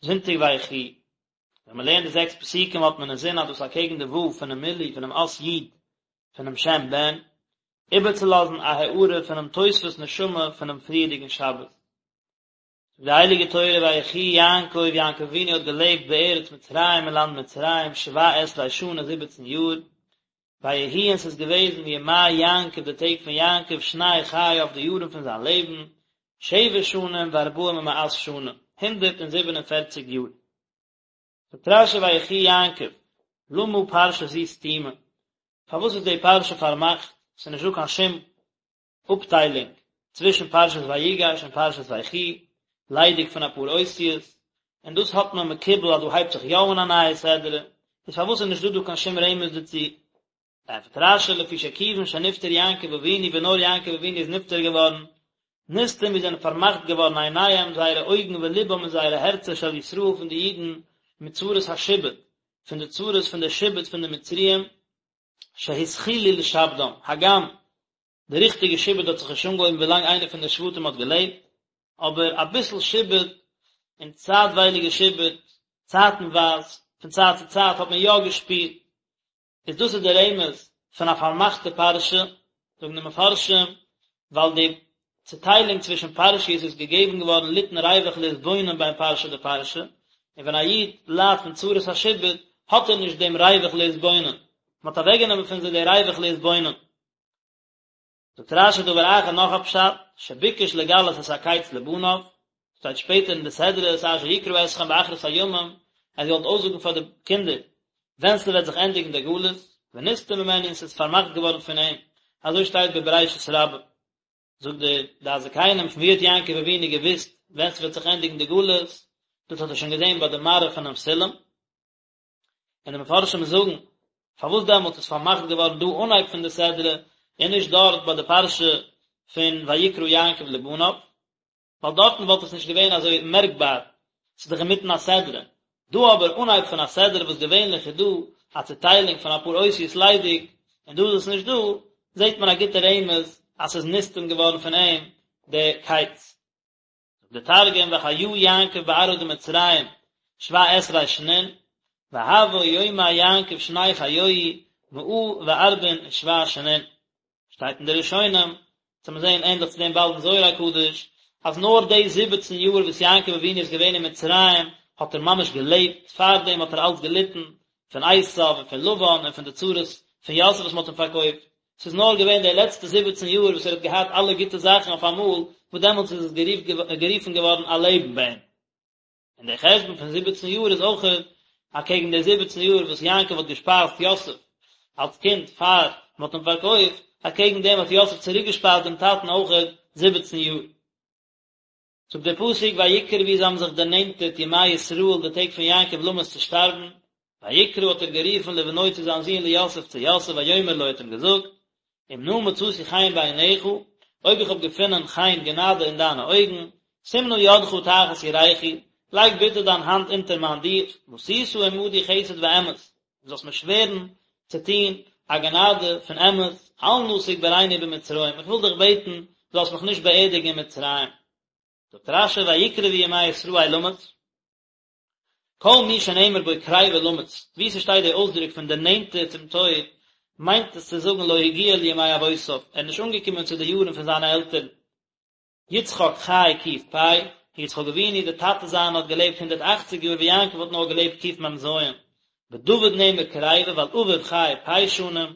זונטאג ויחי. ווען מען לערנט די זעקס פסוקים האט מען אינזין אז דאס אקעגן די ו' פונעם מילוי פונעם אות י' פונעם שם בן, איבערצולאזן א הארה פונעם תוספות נשמה פונעם פריערדיגן שבת. זאגט די הייליגע תורה ויחי יעקב, יעקב אבינו האט געלעבט בארץ מצרים אין לאנד מצרים שבע עשרה שנה זיבעצן יאר, ויהי און ס'איז געוועזן ימי יעקב די טעג פון יעקב שני חייו די יארן פון זיין לעבן, שבע שנים וארבעים ומאת שנה, 147 יאר. זאגט רש"י ויחי יעקב, למה פרשה זו סתומה, פארוואס איז די פרשה פארמאכט, ס'איז נישט דא קיין שום אפטיילונג צווישן פרשת ויגש און פרשת ויחי, ליידיג פון אפאר אותיות, און דאס האט מען מקובל אז דא הייבט זיך יא אן א נייע סדרה, איז פארוואס איז נישט דא דא קיין שום רמז דערצו? ענטפערט רש"י לפי שכיוון שנפטר יעקב אבינו ווען נאר יעקב אבינו איז נפטר געווארן, נסתמו זענען פארמאכט געווארן עיניהם זייערע אויגן ולבם און זייערע הערצער של ישראל פון די אידן מצרות השעבוד, פון די צרות פון די שעבוד פון די מצריים, שהתחילו לשעבדם, הגם די ריכטיגע שעבוד האט זיך נישט אנגעהויבן ווילאנג איינער פון די שבטים האט געלעבט, אבער אביסל שעבוד און צייטווייליגע שעבוד, צייטנווייז, פון צייט צו צייט האט מען יא געשפירט, איז דאס איז די רמז פון א פארמאכטע פרשה, זאגן די מפרשים, ווייל די צוטיילונג צווישן פרשיות איז געגעבן געווארן ליתן ריווח להתבונן בין פרשה לפרשה, און ווען א איד ליידט פון צרות השעבוד האט ער נישט דעם ריווח להתבונן, מען האט אוועקגענומען פון זיי די ריווח להתבונן. זאגט רש"י דבר אחר נאך א פשט, שביקש לגלות את הקץ לבניו, שטייט שפעטער אין די סדרה את אשר יקרא אתכם באחרית הימים, אז איר זאלט אויסזאגן פאר די קינדער ווען ס'וועט זיך ענדיגן די גלות, ונסתם ממנו און ס'איז פארמאכט געווארן פון אים, אזוי שטייט בבראשית רבה. זאגט דער דעת זקנים פון ווי האט יעקב אבינו געוואוסט ווען ס'וועט זיך ענדיגן די גלות, דאס האט ער שוין געזען ביי די מראה פונעם סולם. און די מפרשים זאגן, פארוואס דעמאלטס איז פארמאכט געווארן דא אנהייב פון די סדרה, און נישט דארט ביי די פרשה פון ויקרא יעקב לבניו, ווייל דארטן וואלט עס נישט געווען אזוי מערקבאר, ס'איז דאך אינמיטן א סדרה, דא אבער אנהייב פון א סדרה וואס געווענליך איז דא א צוטיילונג פון אפאר אותיות ליידיג, און דא איז עס נישט דא, זעט מען א גוטע רמז אז ס'איז נסתם געווארן פון אים די קץ. זאגט דער תרגום וחיא יעקב בארעא דמצרים שבע עשרה שנין, והוו יומי יעקב שני חיוהי מאה וארבעין ושבע שנין. שטייט אין די ראשונים, צו מיר זעהן ענדליך צו דעם באלד אין זוהר הקדוש, אז נאר די זיבעצן יאר וואס יעקב אבינו איז געווען אין מצרים האט ער ממש געלעבט, פארדעם האט ער אלץ געליטן פון עשיו און פון לבן און פון די צרות פון יוסף וואס מען האט אים פארקויפט, ס'איז נאר געווען די לעצטע זיבעצן יאר וואס ער האט געהאט אלע גוטע זאכן אויף אמאל, וואס דעמאלטס איז עס גערופן געווארן א לעבן ביי אים. און דער חשבון פון זיבעצן יאר איז אויכעט אקעגן די זיבעצן יאר וואס יעקב האט געשפייזט יוסף אלס קינד פאר מען האט אים פארקויפט, אקעגן דעם האט יוסף צוריקגעשפייזט דעם טאטן אויכעט זיבעצן יאר. זאגט דער פסוק ויקרבו זיי האבן זיך דערנענטערט ימי ישראל די טעג פון יעקב למות צו שטארבן, ויקרא האט ער גערופן לבנו צו זיין זון ליוסף צו יוסף ויאמר לו האט אים געזאגט, אם נא מצאתי חן בעיניך, אויב איך האב געפונען חן גענאדע אין דיינע אויגן, שים נא ידך תחת ירכי, לייג ביטע דיין האנט אונטער מיין דיך, ועשית עמדי חסד ואמת, דו זאלסט מיר שווערן צו טון א גענאדע פון אמת, אל נא תקברני במצרים, איך וויל דיך בעטן דו זאלסט מיך נישט באערדיגן אין מצרים. זאגט רש"י ויקרבו ימי ישראל למות, כל מי שנאמר בו קריבה למות, וואו ס'שטייט די אויסדרוק פון דערנענטער צום טויט, מיינט עס צו זאגן לא הגיע לימי אבותיו, ער איז נישט אנגעקומען צו די יארן פון זיינע עלטערן. יצחק חי ק"פ, יצחק אבינו דער טאטע זיינער האט געלעבט 180 יאר ויעקב האט נאר געלעבט קמ"ז, בדוד נאמר קריבה ווייל אביו חי פ' שנים,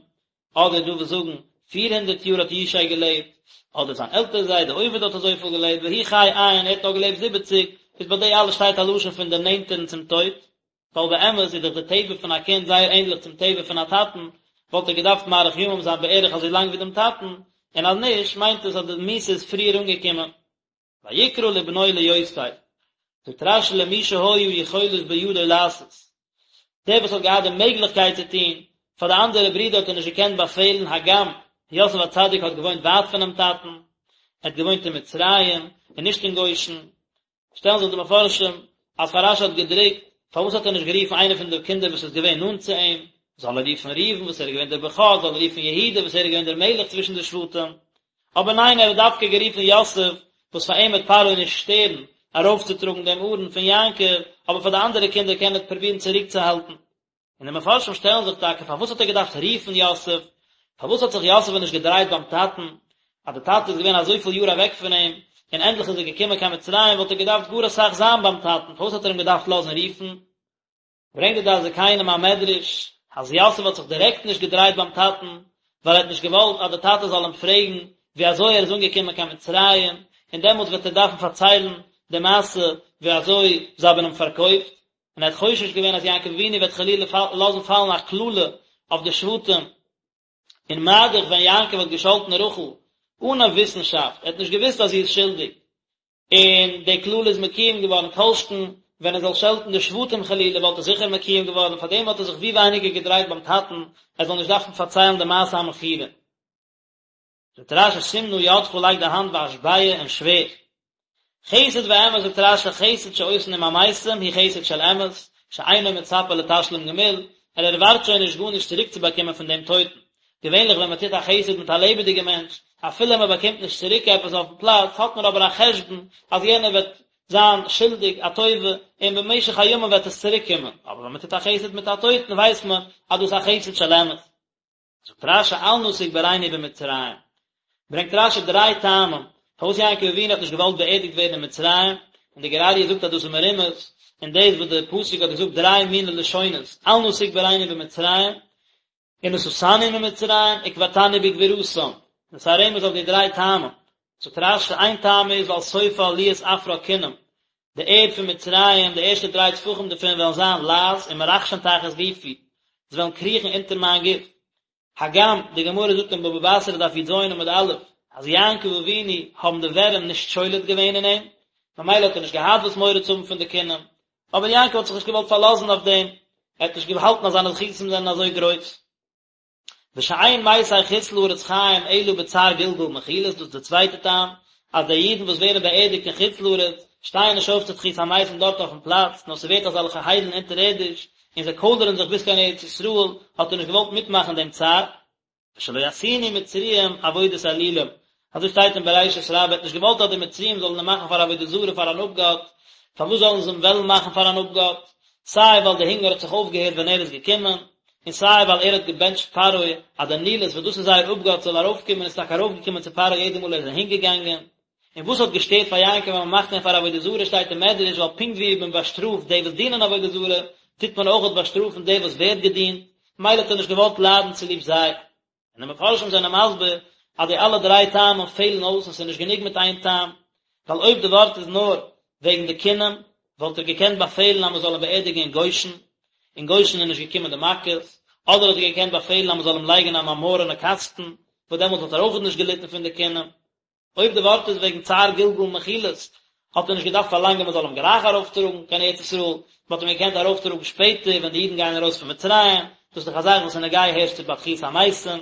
אדער דא וואס זאגן 400 יאר האט ישי געלעבט, אדער זיין עלטער זיידע עובד האט אזויפיל געלעבט, והוא חי ע' ער האט נאר געלעבט זיבעציג, איז ביי די אלע שטייט א לשון פון דערנענטערן צום טויט, ווייל באמת איז דאך די טבע פון א קינד זייער ענדליך צום טבע פון א טאטן, וואלט ער געדארפט מאריך ימים זיין בערך אזוי לאנג ווי דעם טאטן, און אז נישט מיינט עס אז די מיתה איז פריער אנגעקומען. ויקרא לבנו ליוסף, זאגט רש"י למי שהיה יכולת בידו לעשות, דער וואס האט געהאט די מעגליכקייט צו טון, פאר די אנדערע ברידער האט ער נישט געקענט באפעלן הגם יוסף הצדיק האט געוואוינט ווייט פונעם טאטן, ער האט געוואוינט אין מצרים און נישט אין גושן, שטעלן זיך די מפרשים אז פאר רש"י האט געדרוקט, פארוואס האט ער נישט גערופן איינער פון די קינדער וואס איז געווען נאנט צו אים, זאל ער רופן ראובן וואס ער איז געווען דער בכור, זאל ער רופן יהודה וואס ער איז געווען דער מלך צווישן די שבטים, אבער ניין ער האט דווקא גערופן יוסף וואס פאר אים וועט פרעה נישט שטערן ארויפצוטראגן דעם ארון פון יעקב, אבער פאר די אנדערע קינדער קען ער פרובירן צוריקצוהאלטן. און די מפרשים שטעלן זיך טאקע פארוואס האט ער געדארפט רופן יוסף, פארוואס האט זיך יוסף נישט געדרייט ביים טאטן, אז די טאטע איז געווען אזויפיל יאר אוועק פון אים, און ענדליך איז ער געקומען קיין מצרים וואלט ער געדארפט גאר אסאך זיין ביים טאטן, פארוואס האט ער אים געדארפט לאזן רופן? ברענגט די דעת זקנים א מדרש אז יוסף האט זיך דירעקט נישט געדרייט ביים טאטן, ווייל ער האט נישט געוואלט אז די טאטע זאל אים פרעגן ווי אזוי ער איז אנגעקומען קיין מצרים, און דעמאלטס וועט ער דארפן פארציילן די מעשה ווי אזוי זיי האבן אים פארקויפט, און ער האט חושש געווען אז יעקב אבינו וועט חלילה לאזן פאלן א קללה אויף די שבטים, און מה דאך ווען יעקב האט געשאלטן רחל אן א וויסנשאפט, ער האט נישט געוואוסט אז זי איז שולדיג, און די קללה איז מקוים געווארן, כל שכן ווען ער זאל שעלטן די שבטים חלילה וואלט עס זיכער מקוים געווארן, פארדעם האט ער זיך ווי ווייניגער געדרייט ביים טאטן, ער זאל נישט דארפן פארציילן די מעשה המכירה. זאגט רש"י שים נא ידך לייג די האנט והשבע און שווער. חסד ואמת זאגט רש"י חסד שעושין עם המתים הוא חסד של אמת שאינו מצפה לתשלום גמול, ער ערווארט שוין נישט גארנישט צוריק צו באקומען פון דעם טויטן. געווענליך ווען מען טוט א חסד מיט א לעבעדיגע מענטש, אפילו מען באקומט נישט צוריק עפעס אויפן פלאץ, האט מען אבער א חשבון אז יענער וועט זיין שולדיג א טובה און במשך הימים וועט עס צוריק קומען, אבער ווען מען טוט א חסד מיט א טויטן ווייסט מען אז דאס איז א חסד של אמת. זאגט רש"י אל נא תקברני במצרים, ברענגט רש"י דריי טעמים פארוואס יעקב אבינו האט נישט געוואלט באערדיגט ווערן אין מצרים, און די גור אריה זאגט אז דאס איז מרומז אין דאס וואס די פסוק האט געזאגט דריי מיני לשונות, אל נא תקברני במצרים, ונשאתני ממצרים, וקברתני בקבורתם, דאס איז א רמז אויף די דריי טעמים, זאגט רש"י איין טעם איז ווייל סופה להיות עפרה כינים, די ערד פון מצרים, די ערשטע דריי טפחים דערפון וועלן זיין לייז ומרחשין תחת גופי, זיי וועלן קריכן אונטער מיין גוף. הגם, די גמרא זאגט אין בבא בתרא דף י"ז עמוד א', אז יעקב אבינו האבן די ווערים נישט שולט געווען אין אים, ממילא האט ער נישט געהאט וואס מורא צו האבן פון די כינים, אבער יעקב האט זיך נישט געוואלט פארלאזן אויף דעם, ער האט נישט געהאלטן אז זיינע זכותים זענען אזוי גרויס. ושאין מתי חוץ לארץ חיים אלא בצער גלגול מחילות דאס איז די צווייטע טעם אז די אידן וואס ווערן באערדיגט אין חוץ לארץ שטייען נישט אויף צו תחית המתים דארט אויפן פלאץ נאר ס'ווערט אזעלכע היילן אונטערערדיש און זיי קוילערן זיך ביז קיין ארץ ישראל האט ער נישט געוואלט מיטמאכן דעם צער. ושלא יעשני מצריים עבודת אלילים אזוי שטייט אין בראשית רבה ער האט נישט געוואלט אז די מצריים זאלן אים מאכן פאר עבודה זרה פאר אן אפגאט, פארוואס זאלן זיי אים וועלן מאכן פאר אן אפגאט, סיי ווייל די הונגער האט זיך אויפגעהערט ווען ער איז געקומען, און סיי ווייל ער האט געבענטשט פרעה אז די נילוס וואס דאס איז זייער אפגאט זאל ארויפקומען איז טאקע ארויפגעקומען צו פרעה יעדע מאל ער איז אהינגעגאנגען. און וואס האט געשטערט פאר יעקב אז מען מאכט אים פאר עבודה זרה שטייט אין מדרש ווייל פונקט ווי מען באשטראפט די וואס דינען עבודה זרה טוט מען אויכעט באשטראפן די וואס ווערט געדינט, מילא האט ער נישט געוואלט ליידן צוליב זיי. און די מפרשים זענען מסביר אז די אלע דריי טעמים פעלן אויס און ס'איז נישט גענוג מיט איין טעם, ווייל אויב די ווארט איז נאר וועגן די כינים, וואלט ער געקענט באפעלן אז מ'זאל אים באערדיגן אין גושן, אין גושן איז נישט געקומען די מכות, אדער האט ער געקענט באפעלן אז מ'זאל אים לייגן אין א מארמארענע קאסטן, וואס דעמאלט וואלט ער אויכעט נישט געליטן פון די כינים. אויב די ווארט איז וועגן צער גלגול מחילות, האט ער נישט געדארפט פארלאנגען מען זאל אים גלייך ארויפטראגן קיין ארץ ישראל, מען האט אים געקענט ארויפטראגן שפעטער ווען די אידן גייען ארויס פון מצרים, דאס איז דאך א זאך וואס איז נוגע הערשט ביי תחית המתים,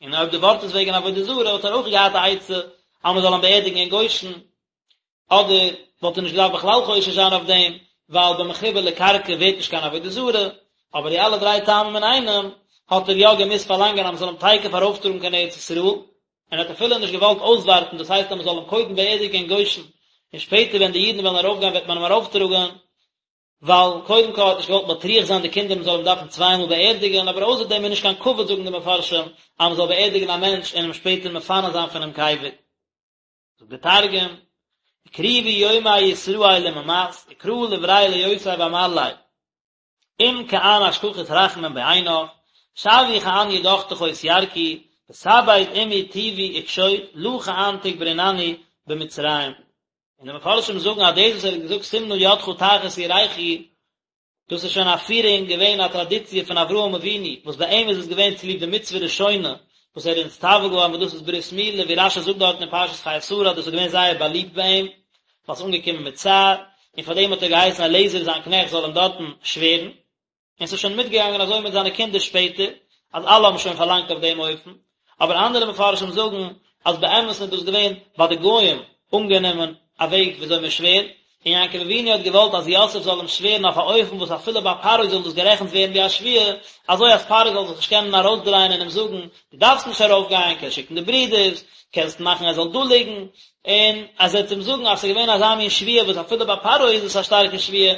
און אויב די ווארט איז וועגן עבודה זרה וואלט ער אויך געהאט א עצה אז מען זאל אים באערדיגן אין גושן, אדער וואלט ער נישט געדארפט בכלל חושש זיין אויף דעם, ווייל במחובר לקרקע ווערט נישט קיין עבודה זרה, אבער די אלע דריי טעמים אינאיינעם האט ער יא געמוזט פארלאנגען אז מען זאל אים תיכף ארויפטראגן קיין ארץ ישראל, און ער האט אפילו נישט געוואלט אויסווארטן, דאס הייסט אז מען זאל אים קודם באערדיגן אין גושן, און שפעטער ווען די אידן וועלן ארויפגיין וועט מען אים ארויפטראגן, ווייל קודם כל האט נישט געוואלט מטריח זיין די קינדער מען זאל אים דארפן צוויי מאל באערדיגן, אבער אויסער דעם איז נישט קיין כבוד זאגן די מפרשים אז מען זאל באערדיגן א מענטש און אים שפעטער מפנה זיין פונעם קבר. זאגט דער תרגום, וקריבו יומי ישראל לממת, וקרא לבריה ליוסף ואמר ליה, אם כען אשכחית רחמין בעינך, שויי כען ידך תחות ירכי, ותביט עמי טיבי וקשוט, לא כען תקברינני במצרים. און די מפרשים זאגן אז דאס וואס ער האט געזאגט שים נא ידך תחת ירכי, דאס איז שוין א פירונג געווען א טראדיציע פון אברהם אבינו, וואס ביי אים איז עס געווען צוליב די מצוה ראשונה וואס ער איז נצטווה געווארן וואס דאס איז ברית מילה, ווי רש"י זאגט דארטן אין פרשת חיי שרה אז דאס איז געווען זייער באליבט ביי אים, ווייל ס'איז אנגעקומען מיט צער, און פאר דעם האט ער געהייסן אליעזר זיין קנעכט זאל אים דארטן שווערן, און ס'איז שוין מיטגעגאנגען אזוי מיט זיינע קינדער שפעטער, אז אלע האבן שוין פארלאנגט אויף דעם אופן, אבער אנדערע מפרשים זאגן אז באמת איז דאס געווען ביי די גוים אנגענומען א וועג וויאזוי מען שווערט, און יעקב אבינו האט געוואלט אז יוסף זאל אים שווערן אויף א אופן וואס אפילו ביי פרעה זאל דאס גערעכנט ווערן ווי א שבועה, אזוי אז פרעה זאל זיך נישט קענען ארויסדרייען און אים זאגן, דו דארפסט נישט ארויפגיין, קענסט שיקן די ברידערס, קענסט מאכן ער זאל דא ליגן, און אז ער וועט אים זאגן אז ס'איז געווען אזא מין שבועה וואס אפילו ביי פרעה איז עס א שטארקע שבועה.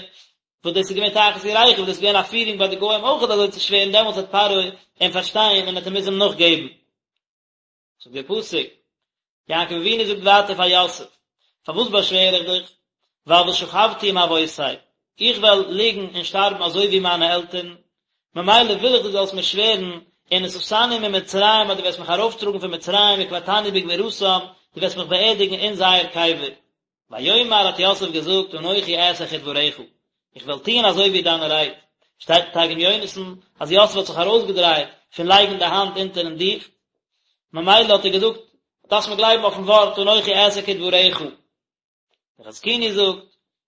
וואס דאס איז געווען תחת ירכי, וואס דאס איז געווען א פירונג ביי די גוים אויכעט אזוי צו שווערן, דעמאלטס וועט פרעה אים פארשטיין און וועט אים מוזן נאכגעבן. זאגט דער פסוק, יעקב אבינו זאגט ווייטער פאר יוסף, פארוואס באשווער איך דיך? ווייל ושכבתי עם אבותי, איך וועל ליגן און שטארבן אזוי ווי מיינע עלטערן, ממילא וויל איך דו זאלסט מיר שווערן, ונשאתני ממצרים אז דו וועסט מיך ארויפטראגן פון מצרים וקברתני בקבורתם, דו וועסט מיך באערדיגן אין זייער קבר. ויאמר האט יוסף געזאגט אנכי אעשה כדבריך, איך וועל טוען אזוי ווי דיינע רייד. שטייט אין תרגום יונתן אז יוסף האט זיך ארויסגעדרייט פון לייגן די האנט אונטערן דיכט, ממילא האט ער געזאגט, דארפסט מיר גלייבן אויפן ווארט אנכי אעשה כדבריך. דער חזקוני זאגט,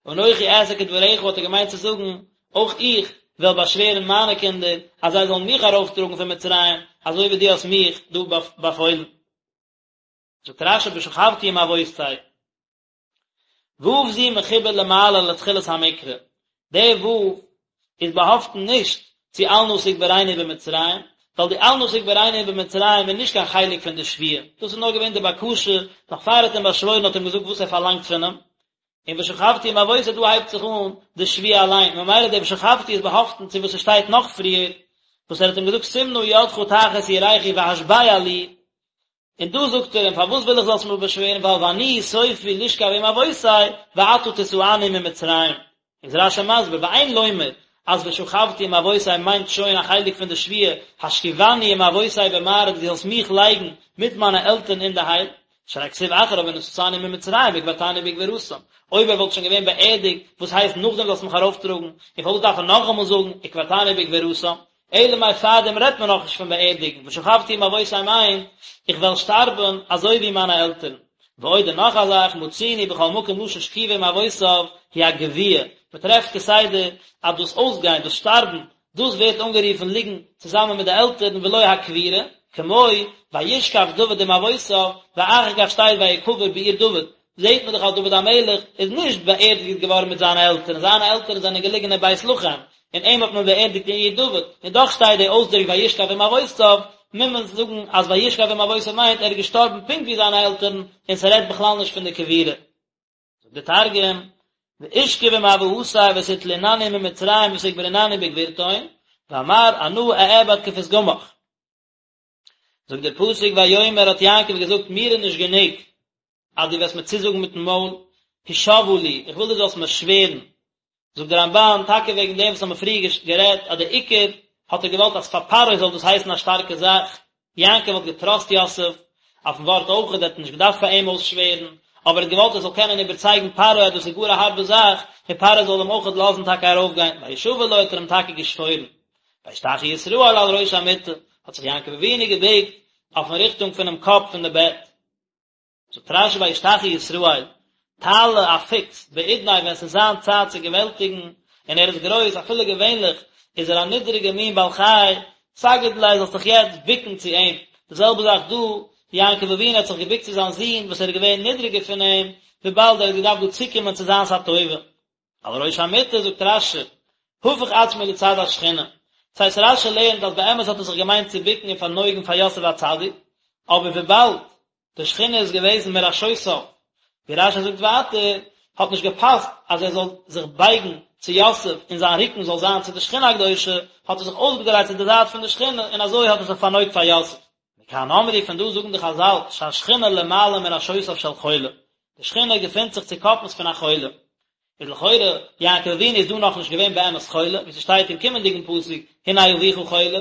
אנכי אעשה כדבריך האט ער געמיינט צו זאגן, אויך איך וועל באשווערן מיינע קינדער אז זיי זאלן מיך ארויפטראגן פון מצרים, אזוי ווי דו האסט מיך דא באפוילן. זאגט רשי ושכבתי עם אבותי ו' זו מחובר למעלה לתחילת המקרא, די ו' איז באהאפטן נישט צו אל נא תקברני במצרים, ווייל די אל נא תקברני במצרים איז נישט קיין חלק פון די שבועה, דאס איז נאר געווען די בקשה, נאך פאר ער האט אים באשוואוירן האט ער אים געזאגט וואס ער פארלאנגט פון אים, און ושכבתי עם אבותי דא הייבט זיך אן די שבועה אליין, ממילא די ושכבתי איז באהאפטן צו וואס עס שטייט נאך פריער, וואס ער האט אים געזאגט שים נא ידך תחת ירכי והשבע לי, און דא זאגט ער אים פארוואס וויל איך זאלסט מיר באשווערן ווייל ואני סופי לשכב עם אבותי ואתה תשאני ממצרים, איז רשי מסביר ואין לומר אז ושכבתי עם אבותי מיינט שוין א חלק פון די שבועה השכיבני עם אבותי במערה דו זאלסט מיך לייגן מיט מיינע עלטערן אין די הייל, שהרי כתיב אחריו ונשאתני ממצרים וקברתני בקבורתם, אויב ער וואלט שוין געווען באערדיגט וואס הייסט נאכדעם זאלסט מיך ארויפטראגן, און פארוואס דארף ער נאכאמאל זאגן וקברתני בקבורתם? אלא מאי פארדעם רעדט מען נאכנישט פון באערדיגן, ושכבתי עם אבותי מיינט, איך וועל שטארבן אזוי ווי מיינע עלטערן. ועוד און נאך א זאך, מצינו בכל מקום לשון שכיבה עם אבותיו היא הגווייה, מען טרעפט כסדר אז דאס אויסגיין, דאס שטארבן, דאס ווערט אנגערופן ליגן צוזאמען מיט די עלטערן ולא הקבורה, כמו, וישכב דוד עם אבותיו, ואחר כך שטייט ויקבר בעיר דוד, זעט מען דאך אז דוד המלך איז נישט באערדיגט געווארן מיט זיינע עלטערן, זיינע עלטערן זענען געליגן אין בית לחם, און אים האט מען באערדיגט אין עיר דוד, און דאך שטייט די אויסדרוק וישכב עם אבותיו, מוז מען זאגן אז וישכב עם אבותיו מיינט ער איז געשטארבן פונקט ווי זיינע עלטערן, און ס'רעדט בכלל נישט פון די קבורה. זאגט דער תרגום, ואשכוב עם אבהתי ותטלינני ממצרים ותקברינני בקבורתהון, ואמר אנא אעבד כפתגמך. זאגט דער פסוק ויאמר האט יעקב געזאגט מיר איז נישט גענוג אז דו וועסט מיר צוזאגן מיטן מויל, השבעה לי, איך וויל דו זאלסט מיר שווערן. זאגט דער רמבן, טאקע וועגן דעם וואס האבן מיר פריער גערעדט אז דער עיקר האט ער געוואלט אז פאר פרעה זאל דאס הייסן א שטארקע זאך, יעקב האט געטראסט יוסף אויפן ווארט אויך, ער האט נישט געדארפט פאר אים אויסשווערן, אבער ער האט געוואלט ער זאל קענען איבערצייגן פרעה אז דאס איז גאר א הארבע זאך, און פרעה זאל אים אויך לאזן טאקע ארויפגיין, וישבע לו האט ער אים טאקע געשוואוירן. וישתחו ישראל על ראש המיטה, האט זיך יעקב אבינו געבוקט אויפן ריכטונג פונעם קאפ פון די בעט. זאגט רשי וישתחו ישראל, תעלה א פוקס בעידניה ווען ס'איז זיין צייט צו געוועלטיגן, און ער איז גרויס, אפילו געווענליך איז ער א נידריגע מין בעל חי, סגיד ליה זאלסט דיך יעצט בוקן צו אים. די זעלבע זאך דא, יעקב אבינו האט זיך געבוקט צו זיין זון וואס ער איז געווען נידריגער פון אים, וויבאלד ער האט געדארפט דא צוקומען צו זיינס א טובה. על ראש המיטה זאגט רשי, הפך עצמו לצד השכינה. דאס הייסט רשי לערנט אז באמת האט ער זיך געמיינט צו בוקן און פארנויגן פאר יוסף הצדיק, אבער וויבאלד די שכינה איז געוועזן מראשותיו, ווי רשי זאגט ווייטער, האט נישט געפאסט אז ער זאל זיך בייגן צו יוסף און זיין רוקן זאל זיין צו די שכינה הקדושה, האט ער זיך אויסגעדרייט צו די זייט פון די שכינה און אזוי האט ער זיך פארנויגט פאר יוסף. מכאן אמרו פון דא זאגן די חזל שהשכינה למעלה מראשותיו של חולה, די שכינה געפינט זיך צוקאפנס פון א חולה, איז לכאורה יעקב אבינו איז דא נאכנישט געווען באמת חולה, ווי ס'שטייט אין קומענדיגן פסוק הנה אביך חולה,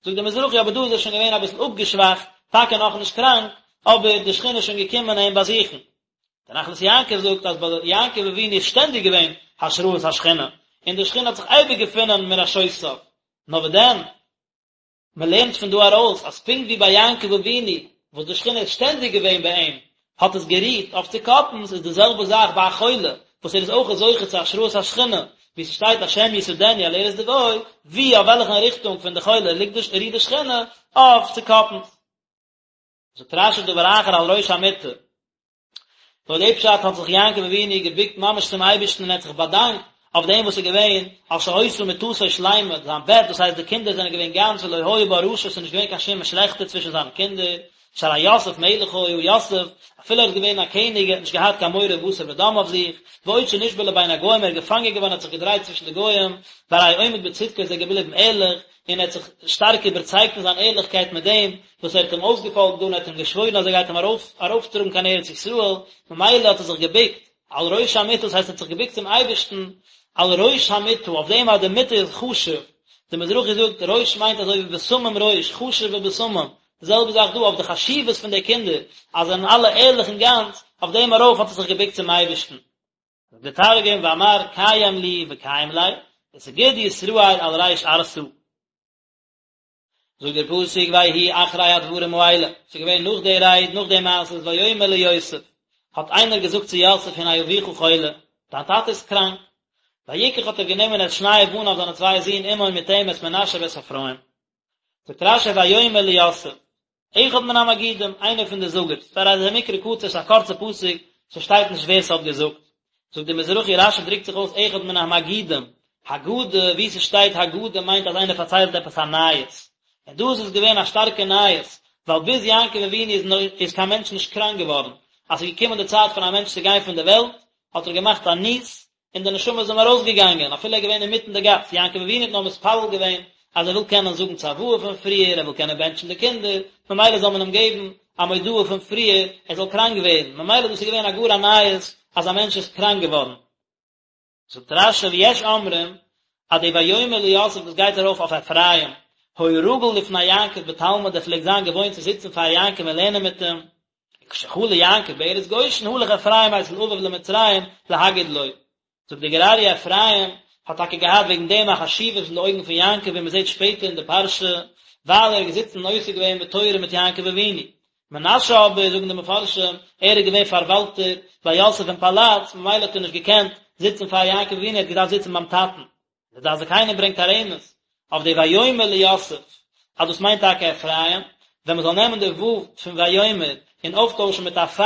זאגט דער מזרחי אבער דא איז ער שוין געווען אביסל אפגעשוואכט, טאקע נאכנישט קראנק, אבער די שכינה איז שוין געקומען אים באזוכן. דער נחלת יעקב זאגט אז ביי יעקב אבינו איז שטענדיג געווען השראת השכינה, און די שכינה האט זיך אייביג געפונען מראשותיו, נאר וואס דען? מען לערנט פון דא ארויס אז פונקט ווי ביי יעקב אבינו וואס די שכינה איז שטענדיג געווען ביי אים האט עס גערוהט אויף צוקאפנס איז די זעלבע זאך ביי א חולה וואס ער איז אויך זוכה צו השראת השכינה ווי ס'שטייט השם יסעדנו על ערש דוי ווי אויף וועלכן ריכטונג פון די חולה ליגט די רוהט די שכינה אויף צוקאפנס. זאגט רשי דבר אחר על ראש המיטה. לויט די פשט האט זיך יעקב אבינו געבוקט ממש צום אייבערשטן און ער האט זיך באדאנקט אויף דעם וואס איז געווען על שהיתה מיטתו שלימה, זיין בעט, דאס הייסט די קינדער זענען געווען גאנץ ולא היה בה רשע, עס איז נישט געווען קיין שום שלעכטע צווישן זיינע קינדער. שהרי יוסף מלך היה, יוסף, אפילו ער איז געווען א קעניג, ער האט נישט געהאט קיין מורא בשר ודם אויף זיך, ועוד שנשבה לבין הגוים, ער איז געפאנגען געווארן, ער האט זיך געדרייט צווישן די גוים, והרי עומד בצדקו איז ער געבליבן ערליך, און ער האט זיך שטארק איבערצייגט אין זיין ערליכקייט מיט דעם וואס ער האט אים אויסגעפאלגט דא און ער האט אים געשוואוירן אז ער גייט אים ארויפטראגן קיין ארץ ישראל, ממילא האט ער זיך געבוקט על ראש המיטה, דאס הייסט ער האט זיך געבוקט צום אייבערשטן על ראש המיטה, אויף דעם אז די מיטה איז חשוב, די מזרחי זאגט ראש מיינט אזוי ווי בשמים ראש, חשוב בשמים, די זעלבע זאך דא אויף די חשיבות פון די קינדער, אז זיי זענען אלע ערליך און גאנץ, אויף דעם ארויף האט ער זיך געבוקט צום אייבערשטן. זאגט דער תרגום ואמר קיים לי וקיים ליה, וסגיד ישראל על ריש ערסא. זאגט דער פסוק ויהי אחרי הדברים האלה, ס'איז געווען נאך די רייד, נאך די מעשות, ויאמר ליוסף, האט איינער געזאגט צו יוסף הנה אביך חולה, דיין טאטע איז קראנק. ויקח האט ער גענומען את שני בניו זיינע צוויי זין עמו מיט אים את מנשה ואת אפרים. זאגט רשי ויאמר ליוסף, אחד מן המגידים, איינער פון די זאגערס, והרי זה מקרא קצר, ס'איז א קורצע פסוק, ס'שטייט נישט ווער ס'האט געזאגט. זאגט דער מזרחי, רשי דרוקט זיך אויס אחד מן המגידים, הגדה, וואו ס'שטייט הגדה מיינט אז איינער פארציילט עפעס א נייעס. און דא איז עס געווען א שטארקע נייעס, ווייל ביז יעקב אבינו איז איז קיין מענטש נישט קראנק געווארן, אז ס'איז געקומען די צייט פון א מענטש צו גיין פון די וועלט, האט ער געמאכט א ניס, און די נשמה איז אים ארויסגעגאנגען, אפילו ער איז געווען אינמיטן די גאס, יעקב אבינו האט נאר מתפלל געווען אז ער וויל קענען זאגן צוואה פון פריער, ער וויל קענען בענטשן די קינדער, ממילא זאל מען אים געבן א מודעה פון פריער, ער זאל קראנק ווערן, ממילא דאס איז געווען א גאר א נייעס אז א מענטש איז קראנק געווארן. זאגט רשי ויש אומרים אז די ויאמר ליוסף דאס גייט ארויף אויף אפרים, היה רגיל לפני יעקב בתלמוד ער פלעגט זיין געוואוינט צו זיצן פאר יעקב און לערנען מיט אים, וכשחלה יעקב בארץ גושן הלך אפרים אצל אביו למצרים להגיד לו. זאגט די גור אריה אפרים האט טאקע געהאט וועגן דעם א חשיבות אין די אויגן פון יעקב ווי מען זעט שפעטער אין די פרשה ווייל ער איז געזיצן און עוסק געווען בתורה מיט יעקב אבינו. מנשה אבער זאגן די מפרשים ער איז געווען פארוואלטער ביי יוסף אין פאלאץ ממילא האט ער נישט געקענט זיצן פאר יעקב אבינו ער האט געדארפט זיצן ביים טאטן. דער דעת זקנים ברענגט א רמז אויף די ויאמר ליוסף אז דאס מיינט טאקע אפרים, ווען מען זאל נעמען די ו' פון ויאמר און אויפטוישן מיט א פ'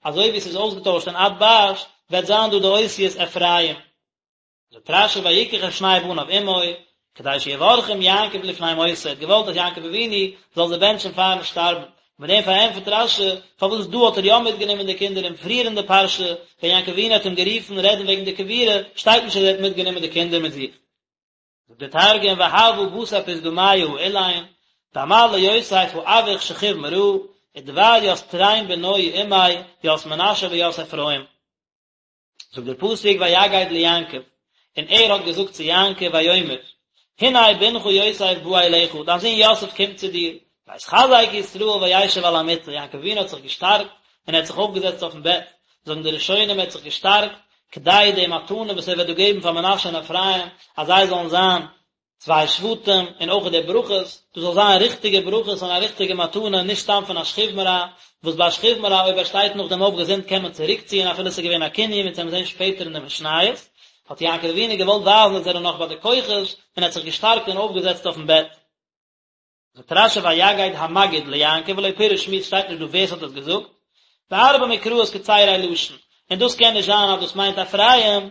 אזוי ווי עס איז אויסגעטוישט אין את באש, וועט זיין דא די אותיות אפרים. זאגט רשי ויקח את שני בניו עמו, כדי שיברכם יעקב לפני מותו, ער האט געוואלט אז יעקב אבינו זאל זיי בענטשן פארן שטארבן, מיט דעם פארענטפערט רשי פארוואס דא האט ער יא מיטגענומען די קינדער און פריער אין די פרשה ווען יעקב אבינו האט אים גערופן רעדן וועגן די קבורה שטייט נישט אז ער האט מיטגענומען די קינדער מיט זיך. זאגט דער תרגום והוה בתר פתגמיא האלין ואמר ליוסף הא אבוך שכיב מרע ודבר ית תרין בנוהי עמיה ית מנשה וית אפרים. זאגט דער פסוק ויגד ליעקב, און ער האט געזאגט צו יעקב ויאמר, הנה בנך יוסף בא אליך, דיין זון יוסף קומט צו דיר, ויתחזק ישראל וישב על המיטה, יעקב אבינו האט זיך געשטארקט און ער האט זיך אויפגעזעצט אויפן בעט, זאגן די ראשונים ער האט זיך געשטארקט כדי די מתנה וואס ער וועט דא געבן פאר מנשה און אפרים אז זיי זאלן זיין צוויי שבטים, און אויך די ברכות, דאס זאל זיין ריכטיגע ברכות און א ריכטיגע מתנה, נישט סתם פון א שכיב מרע, וואס ביי א שכיב מרע אויב ער שטייט נאכדעם אויף געזונט קען מען צוריקציען אפילו עס איז געווען א קנין, ווי מיר זען שפעטער אין די משניות, האט יעקב אבינו געוואלט ווייזן אז ער איז נאך ביי די כוחות, און ער האט זיך געשטארקט און אויפגעזעצט אויפן בעט. זאגט רשי ויגד המגיד ליעקב ולא פירש מי ס'שטייט נישט דא ווער ס'האט עס געזאגט, והרבה מקראות קצרי לשון, און דאס קען נישט זיין אז דאס מיינט אפרים,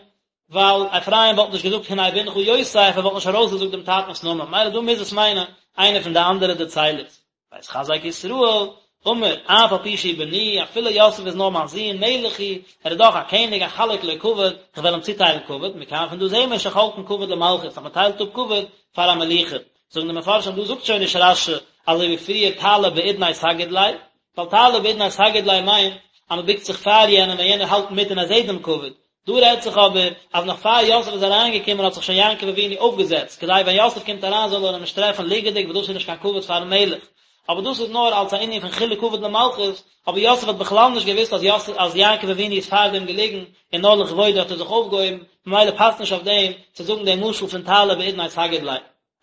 ווייל אפרים וואלט נישט געזאגט הנה בנך יוסף, ער וואלט נישט ארויסגעזאגט דעם טאטנ'ס נאמען, ממילא דא מוז עס מיינען איינער פון די אנדערע דערציילערס. ויתחזק ישראל, אמר, אף על פי שהוא בני, אפילו יוסף איז נאר מיין זון, מלך הוא, ער איז דאך א קעניג, אחלק לו כבוד, איך וועל אים צוטיילן כבוד, מכאן פון דא זעהן מיר שחולקין כבוד למלכות, אז מען טיילט אפ כבוד פאר א מלוכה. זאגן די מפרשים דא זאגט שוין נישט רשי אזוי ווי פריער תעלא בעידניה סגיד ליה, ווייל תעלא בעידניה סגיד ליה מיינט אז מען בוקט זיך פאר יענעם ווען יענער האלט מיט און ער זעט דעם כבוד, דא רעדט זיך אבער אז נאך פאר יוסף איז אריינגעקומען האט זיך שוין יעקב אבינו אויפגעזעצט כדי ווען יוסף קומט אריין זאל ער אים נישט טרעפן ליגעדיג וואס דאס איז נישט קיין כבוד פארן מלך, אבער דאס איז נאר אלס א ענין פון חילוק כבוד למלכות, אבער יוסף האט בכלל נישט געוואוסט אז יוסף אז יעקב אבינו איז פארדעם געליגן און נאר לכבודו האט ער זיך אויפגעהויבן, ממילא פאסט נישט אויף דעם צו זאגן דעם משל פון תעלא בעידניה סגיד ליה.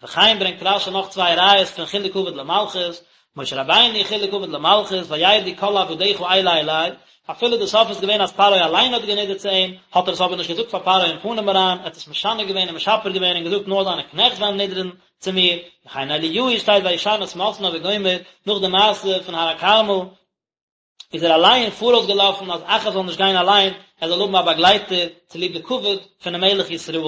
וכן ברענגט רשי נאך צוויי ראיות פון חילוק כבוד למלכות, משה רבינו חילק כבוד למלכות, וירדו כל עבדיך אלה אלי, אפילו די סוף איז געווען אז פרעה אליין האט גענידערט צו אים, האט ער עס אבער נישט געזאגט פאר פרעה אין פנים אריין, ער האט עס משנה געווען און משפר געווען און געזאגט נאר דיינע קנעכט וועלן נידערן צו מיר, וכן אליהו שטייט וישנס מתניו וגומר, נאך די מעשה פון הר הכרמל, איז ער אליין פאראויס געלאפן אז אחאב זאל נישט גיין אליין, ער זאל האבן א באגלייטער צוליב די כבוד פונעם מלך ישראל.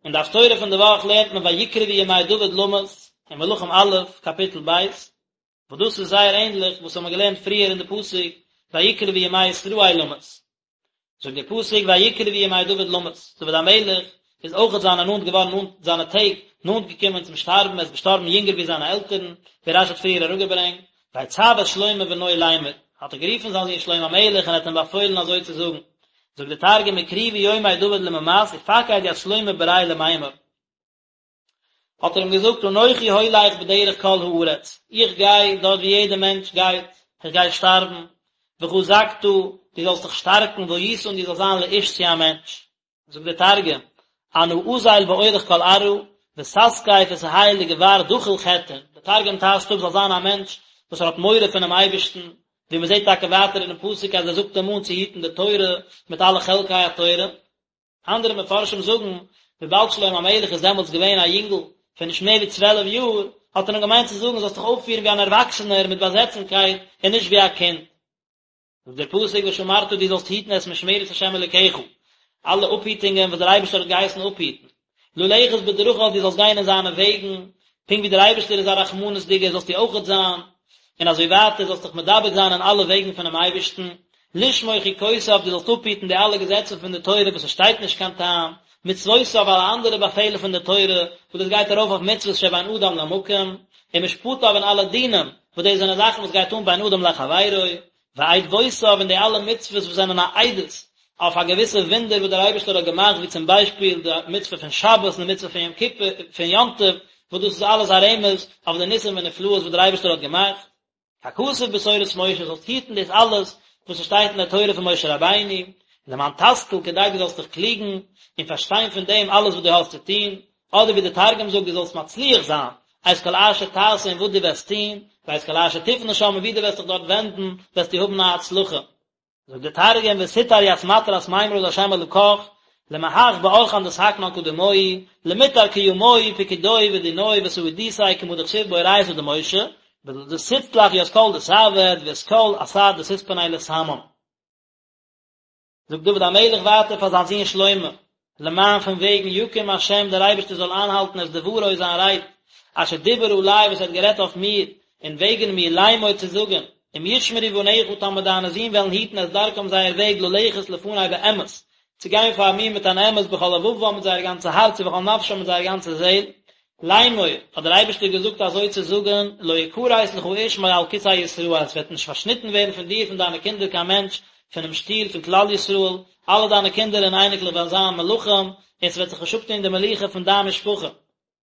אין די הפטורה פון די וואך לערנט מען ויקרבו ימי דוד למות, אין מלכים א', קאפיטל ב'. וואס דאס איז זייער ענדליך וואס האבן מיר געלערנט פריער אין די פסוק ויקרבו ימי ישראל למות. זאגט דער פסוק ויקרבו ימי דוד למות, דוד המלך איז אויכעט זיינע נאנט געווארן נאנט זיינע טעג נאנט געקומען צום שטארבן, ער איז געשטארבן יונגער ווי זיינע עלטערן, ווי רש"י האט פריער אראפגעברענגט, ויצו את שלמה בנו לאמר, האט ער גערופן זיין זון שלמה המלך און האט אים באפוילן אזוי צו זאגן, זאגט דער תרגום וקריבו יומי דוד לממת ופקיד ית שלמה בריה למימר. האט ער אים געזאגט אנכי הולך בדרך כל הארץ, איך גיי דארט ווי יעדער מענטש גייט, איך גיי שטארבן, וחזקת, דו זאלסט דיך שטארקן, והיית און דו זאלסט זיין לאיש צו א מענטש. זאגט דער תרגום, אנא אזיל באורח כל ארעא, ותתקיף ותהי לגבר דחיל חטאין, דער תרגום טייטשט אפ זאל זיין א מענטש וואס ער האט מורא פונעם אייבערשטן, ווי מען זעט טאקע ווייטער אינעם פסוק אז ער זאגט אים אן צו היטן די תורה מיט אלע חלקי התורה. אנדערע מפרשים זאגן, וויבאלד שלמה המלך איז דעמאלטס געווען א יונגל פון נישט מער ווי צוועלף יאר, האט ער אים געמיינט צו זאגן זאלסט דיך אויפפירן ווי אן ערוואקסענער מיט באזעצנקייט און נישט ווי א קינד. זאגט דער פסוק ושמרת דו זאלסט היטן את משמרת השם אלוקיך, אלע אפהיטונגען וואס דער אייבערשטער האט געהייסן אפהיטן, ללכת בדרכיו דו זאלסט גיין אין זיינע וועגן, פונקט ווי דער אייבערשטער איז א רחמנות'דיגער זאלסטו אויכעט זיין, און אזוי ווייטער זאלסט דיך מדבק זיין אין אלע וועגן פונעם אייבערשטן, לשמור חוקותיו דו זאלסט אפהיטן די אלע געזעצן פון די תורה וואס עס שטייט נישט קיין טעם, מצוותיו אלע אנדערע באפעלן פון די תורה וואס דאס גייט ארויף אויף מצוות שבין אדם למקום, ומשפטיו און אלע דינים וואס דאס זענען זאכן וואס גייט אן בין אדם לחבירו, ועדותיו און די אלע מצוות וואס זענען א עדות אויף א געוויסע וואונדער וואס דער אייבערשטער האט געמאכט ווי צום ביישפיל די מצוה פון שבת און די מצוה פון יום כיפור פון יום טוב וואס דאס איז אלעס א רמז אויף די ניסים ונפלאות וואס דער אייבערשטער האט געמאכט. ככתוב בתורת משה זאלסט היטן דאס אלעס וואס עס שטייט אין דער תורה פון משה רבינו, למען תשכיל כדי דו זאלסט דיך קליגן און פארשטיין פון דעם אלעס וואס דו האסט צו טון, אדער ווי דער תרגום זאגט דו זאלסט מצליח זיין, את כל אשר תעשה אין וואס דו וועסט טון, ואת כל אשר תפנה שם און וואו דו וועסט דיך דארט ווענדן וועסטו האבן א הצלחה. זאגט דער תרגום ותטר ית מטרת מימרא דה' אלקך, למהך באורחן דתקנן קדמוהי, למטר קימוהי פקודוהי ודינוהי וסהדותי' כמה דכתיב באורייתא דמשה, ולדתצלח ית כל דתעביד וית כל אתר דתתפני לתמם. זאגט דוד המלך ווייטער פאר זיין זון שלמה, למען פון וועגן יקים השם דער אייבערשטער זאל איינהאלטן את דברו זיין רייד, אשר דיבר עלי וואס ער האט גערעדט אויף מיר, און וועגן מיר, לאמור צו זאגן, אם ישמרו בניך טאמער דיינע זין וועלן היטן את דרכם זייער וועג ללכת לפני באמת, צו גיין פאר מיר מיט אן אמת בכל לבבם מיט זייער גאנצע הארץ ובכל נפשם מיט זייער גאנצע זעל, לאמור, האט דער אייבערשטער געזאגט אזוי צו זאגן, לא יכרת לך איש מעל כסא ישראל, עס וועט נישט פארשניטן ווערן פון דיר פון דיינע קינדער קיין מענטש פונעם שטול פון כלל ישראל, אלע דיינע קינדער און אייניקלעך וועלן זיין מלכים, און ס'וועט זיך נישט אפטון די מלוכה פון דיין משפחה.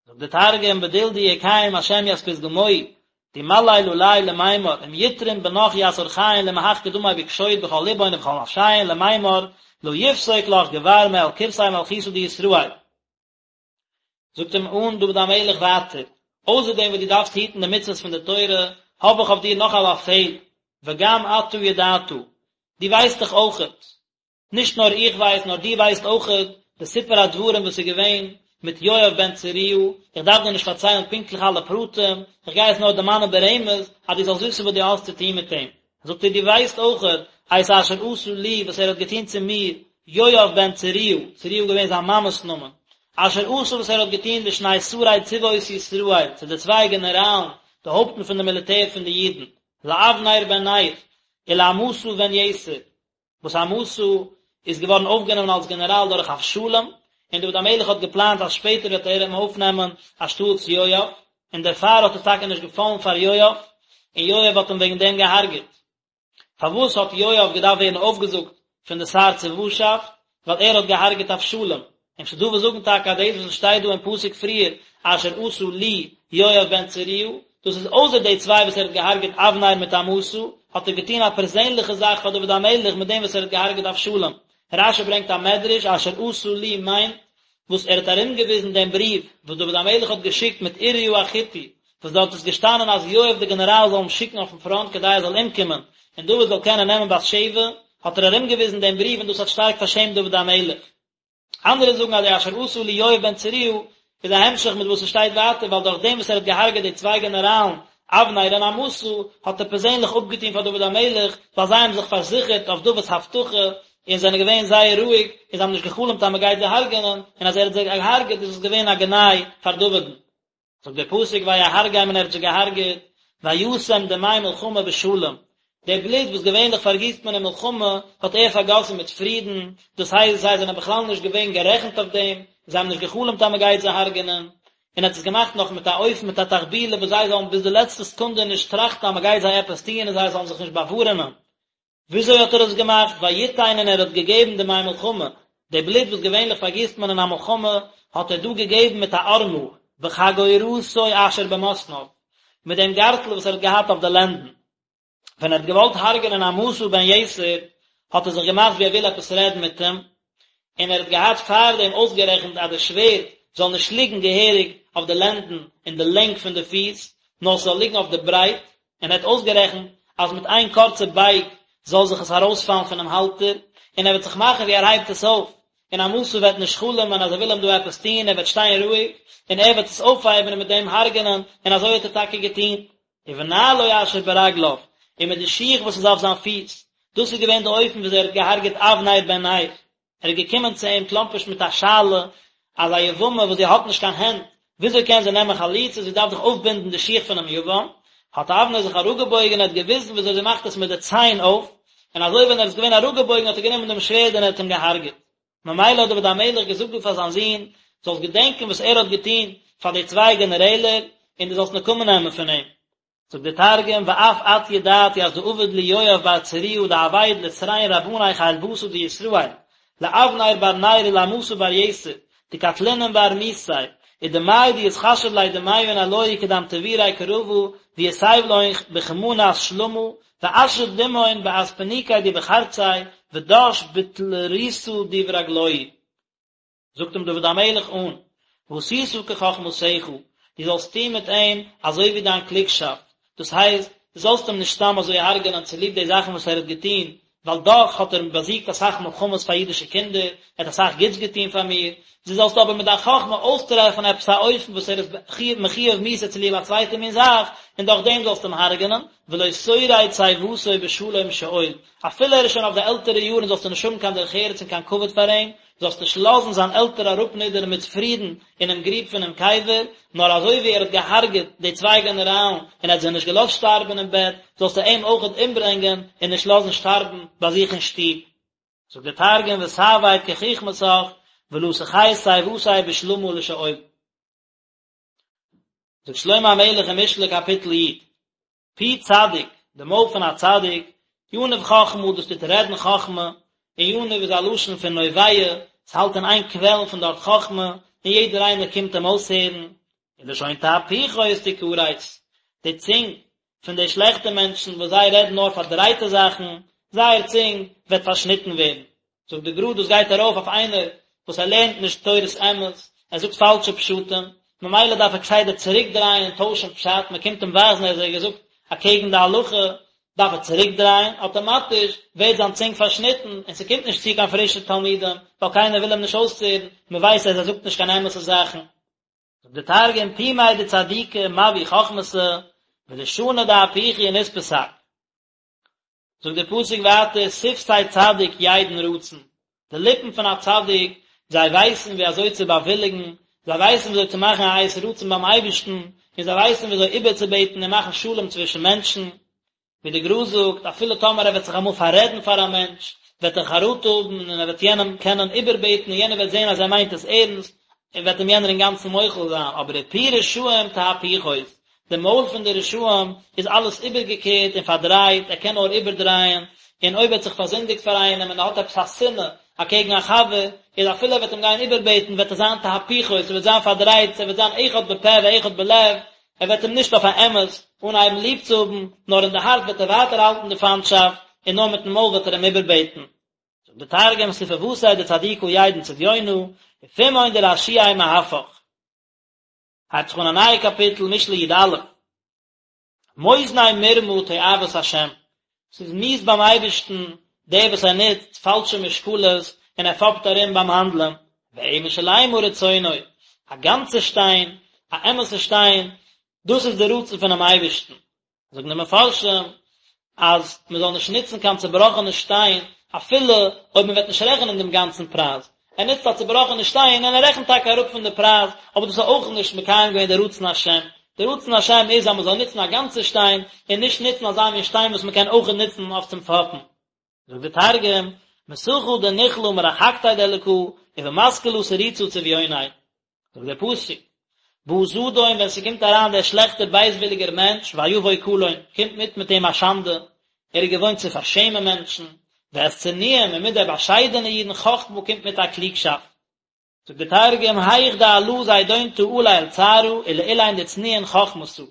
זאגט דער תרגום, בדיל די יקיים השם ית פתגמוהי, די מליל עלי למימר, אם יטרון בנך ית אורחיין למהך קדמי בקשוט בכל לבהון ובכל נפשיהון למימר, לא יפסוק לך גבר מעל כורסי מלכותא דישראל. זאגט אים אן דוד המלך ווייטער, אויסער דעם וואס דו דארפסט היטן די מצוות פון די תורה, האב איך אויף דיר נאך א באפעל, וגם אתה ידעת, דו ווייסט דאך אויכעט, נישט נאר איך ווייס, נאר דו ווייסט אויכעט, די סיפור הדברים וואס איז געווען מיט יואב בן צרויה, איך דארף דיר נישט פארציילן פונקטליך אלע פרטים, איך גיי עס נאר דערמאנען ברמז, אז דו זאלסט וויסן וואס דו האסט צו טון מיט אים. זאגט ער דו ווייסט אויכעט את אשר עשה לי וואס ער האט געטון צו מיר יואב בן צרויה, צרויה איז געווען זיין מאמע'ס נאמען, אשר עשה וואס ער האט געטון לשני שרי צבאות ישראל, צו די צוויי גענעראלן, די הויפטן פון די מיליטער פון די אידן, לאבנר בן נר, ולעמשא בן יתר, וואס עמשא איז געווארן אויפגענומען אלס גענעראל דורך אבשלום, און דוד המלך האט געפלאנט אז שפעטער וועט ער אים אויפנעמען אנשטאטס יואב, און דערפאר האט עס טאקע נישט געפאלן פאר יואב, און יואב האט אים וועגן דעם געהארגעט. פארוואס האט יואב געדארפט ווערן אויפגעזאגט פון די שר צבאשאפט? ווייל ער האט געהארגעט אבשלום. און ס'דא וואס זאגן טאקע אז דאס וואס עס שטייט דא אין פסוק פריער אשר עשה לי יואב בן צרויה, דאס איז אויסער די צוויי וואס ער האט געהארגעט אבנר מיט עמשא, האט ער געטון א פערזענליכע זאך פאר דוד המלך מיט דעם וואס ער האט געהארגעט אבשלום. רש"י ברענגט א מדרש אשר עשה לי מיינט וואס ער האט ארומגעוויזן דעם בריוו וואס דוד המלך האט געשיקט מיט אוריה החתי, וואס דארט איז געשטאנען אז יואב דער גענעראל זאל אים שיקן אויפן פראנט כדי ער זאל אומקומען און דוד זאל קענען נעמען בת שבע, האט ער ארומגעוויזן דעם בריוו און דאס האט שטארק פארשעמט דוד המלך. אנדערע זאגן אז די אשר עשה לי יואב בן צרויה איז א המשך מיט וואס עס שטייט ווייטער ווייל דורך דעם וואס ער האט געהארגעט די צוויי גענעראלן אבנר און עמשא האט ער פערזענליך אפגעטון פאר דוד המלך ווייל זיי האבן זיך פארזיכערט אויף דוד'ס הבטחה און זענען געווען זייער רואיג און זיי האבן נישט גע'חלומ'ט אז מען גייט זיי הרג'ענען און אז ער האט זיי געהארגעט איז עס געווען א גנאי פאר דוד'ן. זאגט דער פסוק ויהרגם און ער האט זיי געהארגעט. וישם דמי מלחמה בשלום, די בלוט וואס געווענליך פארגיסט מען אין מלחמה, האט ער פארגאסן מיט פרידן, דאס הייסט זיי זענען בכלל נישט געווען גערעכנט אויף דעם, זיי האבן נישט גע'חלומ'ט אז מען גייט זיי הרג'ענען, און ער האט עס געמאכט נאך מיט א אופן מיט א תחבולה וואס זיי זאלן ביז די לעצטע סעקונדע נישט טראכטן אז מען גייט זיי עפעס טוען און זיי זאלן זיך נישט באווארענען. וויאזוי האט ער עס געמאכט? ויתן און ער האט געגעבן דמי מלחמה, די בלוט וואס געווענליך פארגיסט מען אין א מלחמה, האט ער דא געגעבן מיט א ערמה, בחגורתו אשר במתניו, מיט דעם גארטל וואס ער האט געהאט אויף די לענדן. ווען ער האט געוואלט הרג'ענען עמשא בן יתר, האט ער זיך געמאכט ווי ער וויל עפעס רעדן מיט אים, און ער האט געהאט פארדעם אויסגערעכנט אז די שווערד זאל נישט ליגן געהעריג אויף די לענדן אין די לענג פון די פיס, נאר ס'זאל ליגן אויף די ברייט, און ער האט אויסגערעכנט אז מיט איין קורצע בייג זאל זיך עס ארויספאלן פונעם האלטער, און ער וועט זיך מאכן ווי ער הייבט עס אויף, און עמשא וועט נישט חלומ'ען אז ער וויל אים דא עפעס טון, ער וועט שטיין רואיג, און ער וועט עס אויפהייבן און מיט דעם הרג'ענען, און אזוי האט ער טאקע געטון. ובנעלו אשר ברגליו, און מיט די שיך וואס איז אויף זיין פיס, דאס איז געווען די אופן וויאזוי ער האט געהארגעט אבנר בן נר, ער איז געקומען צו אים קלאמפערשט מיט א שאלה, אז א יבמה וואס זי האט נישט קיין הענט, וויאזוי קען זי נעמען חליצה, זי דארף דאך אויפבינדן די שיך פונעם יבם, האט אבנר זיך אראפגעבויגן און ער האט געוויזן וויאזוי זי מאכט עס מיט די ציין אויף, און אזוי ווען ער איז געווען אראפגעבויגן האט ער גענומען דעם שווערד און ער האט אים געהארגעט. ממילא האט דוד המלך געזאגט דא פאר זיין זון, זאלסט געדענקען וואס ער האט געטון פאר די צוויי גענערעלער, און דו זאלסט נקמה נעמען פון אים. זאגט דער תרגום, ואף את ידעת ית דעבד ליואב בר צרויה דעביד לתרין רבני חיל בשר דישראל, לאבנר בר נר ולעמשא בר יתר, דקטלינון בערמותיה, ודמאי דיתחשב ליה דמיהון עלוהי כדם טבורי קרבא, ויתיב לון בכמנת שלמא, ואשא דמהון באספניקי די בחרציה, ודש בטלריתא די ברגלוהי. זאגט אים דוד המלך אן, ועשית כחכמתך, דו זאלסט טון מיט אים אזוי ווי דיין קלוגשאפט, דאס הייסט, דו זאלסט אים נישט סתם אזוי הרג'ענען צוליב די זאכן וואס ער האט געטון, ווייל דאך האט ער באזיגט אסאך מלחמות פאר אידישע קינדער, ער האט אסאך גוטס געטון פאר מיר, דו זאלסט אבער מיט דיין חכמה אויסטרעפן עפעס א אופן וואס ער איז מחויב מיתה צוליב א צווייטע מין זאך, און דורך דעם זאלסטו אים הרג'ענען, ולא תורד שיבתו בשלום שאול, אפילו ער איז שוין אויף די עלטערע יארן זאלסטו נישט האבן קיין דרך ארץ און קיין כבוד פאר אים, זאלסט נישט לאזן זיין עלטער אראפנידערן מיט פרידן אינעם גריב פונעם קבר, נאר אזוי ווי ער האט געהארגעט די צוויי גענעראלן און ער האט זיי נישט געלאזט שטארבן אין בעט, זאלסטו אים אויכעט אומברענגען און נישט לאזן שטארבן ביי זיך אין שטוב. זאגט דער תרגום ותעביד כחכמתך ולא תחית שיבתיה בשלמא לשאול. זאגט שלמה המלך אין משלי קאפיטל י, פי צדיק, די מויל פון א צדיק, יניב חכמה, דאס טוט רעדן חכמה, און יניב איז א לשון פון נובע, עס האלט אין איין קוועלן פון דארט חכמה, און יעדער איינער קומט אים אויסהערן, ולשון תהפוכות תכרת, די צונג פון די שלעכטע מענטשן וואס זיי רעדן נאר פארדרייטע זאכן, זייער צונג וועט פארשניטן ווערן. זאגט די גר"א דאס גייט ארויף אויף איינער וואס ער לערנט נישט תורת אמת, ער זאגט פאלשע פשטים, ממילא דארף ער כסדר צוריק דרייען און טוישן פשט, מען קומט אים ווייזן אז ער האט געזאגט אקעגן די הלכה, דארף ער צוריק דרייען, אטאמאטיש ווערט זיין צונג פארשניטן און ס'קומט נישט צו קיין פרישע תלמידים, ווייל קיינער וויל אים נישט אויסצוהערן, מען ווייסט אז ער זאגט נישט קיין אמת'ע זאכן. זאגט די תרגום פומיה דצדיקי מבעי חכמתא ולישנא דהפיכי נתפסק. זאגט דער פסוק ווייטער שפתי צדיק ידעון רצון, די ליפן פון א צדיק, זיי ווייסן ווי אזוי צו באוויליגן, זיי ווייסן ווי אזוי צו מאכן א עת רצון ביים אייבערשטן, און זיי ווייסן ווי אזוי איבערצובעטן און מאכן שלום צווישן מענטשן, ווי די גר"א זאגט, אפילו טאמער ער וועט זיך אמאל פאררעדן פאר א מענטש, וועט ער חרטה האבן און ער וועט יענעם קענען איבערבעטן און יענער וועט זען אז ער מיינט עס ערנסט, און וועט אים יענער אינגאנצן מוחל זיין, אבער ופי רשעים תהפוכות, די מויל פון די רשעים איז אלעס איבערגעקערט און פארדרייט, ער קען נאר איבערדרייען, און אויב ער האט זיך פארזינדיגט פאר איינעם און ער האט עפעס א שנאה אקעגן א חבר, איז אפילו ער וועט אים גיין איבערבעטן וועט עס זיין תהפוכות, עס וועט זיין פארדרייט, עס וועט זיין אחד בפה ואחד בלב, ער וועט אים נישט אויף א אמת אנהייבן ליב צו האבן, נאר אין די הארץ וועט ער ווייטער האלטן די פיינטשאפט, און נאר מיטן מויל וועט ער אים איבערבעטן. זאגט דער תרגום, ספוותיה דצדיקא ידעון צביונא, ופומהון דרשיעי מהפך. הייבט זיך אן א נייע קאפיטל, משלי י"א. מאזני מרמה תועבת השם, ס'איז מיאוס ביים אייבערשטן דער וואס ער נוצט פאלשע משקלות און ער פאפט ארום ביים האנדלען, ואבן שלמה רצונו, א גאנצע שטיין, א אמת'ע שטיין, דאס איז די רצון פונעם אייבערשטן. זאגן די מפרשים אז מען זאל נישט נוצן קיין צובראכענע שטיין אפילו אויב מען וועט נישט רעכענען דעם גאנצן פרייז, ער נוצט א צובראכענע שטיין און ער רעכנט טאקע אראפ פון די פרייז, אבער דאס איז אויך נישט מקיים געווען די רצון השם. דער רצון השם איז אז מען זאל נוצן א גאנצע שטיין, און נישט נוצן אזא מין שטיין וואס מען קען אויכעט נוצן אויף צום פאפן. זאגט דער תרגום, מסכא דנכלא מרחקתיה דאלקא, ובמתקלא תריצא צביוניה. זאגט דער פסוק, בא זדון ווען ס'קומט אריין דער שלעכטער בייזוויליגער מענטש ויבא קלון, קומט מיט מיט אים א שאנדע, ער איז געוואוינט צו פארשעמען מענטשן, ואת צנועים און מיט די באשיידענע אידן חכמה קומט מיט א קלוגשאפט. זאגט דער תרגום, היך דעלא זידונתא עליל צערא ולאילין דצניעין חכמתא.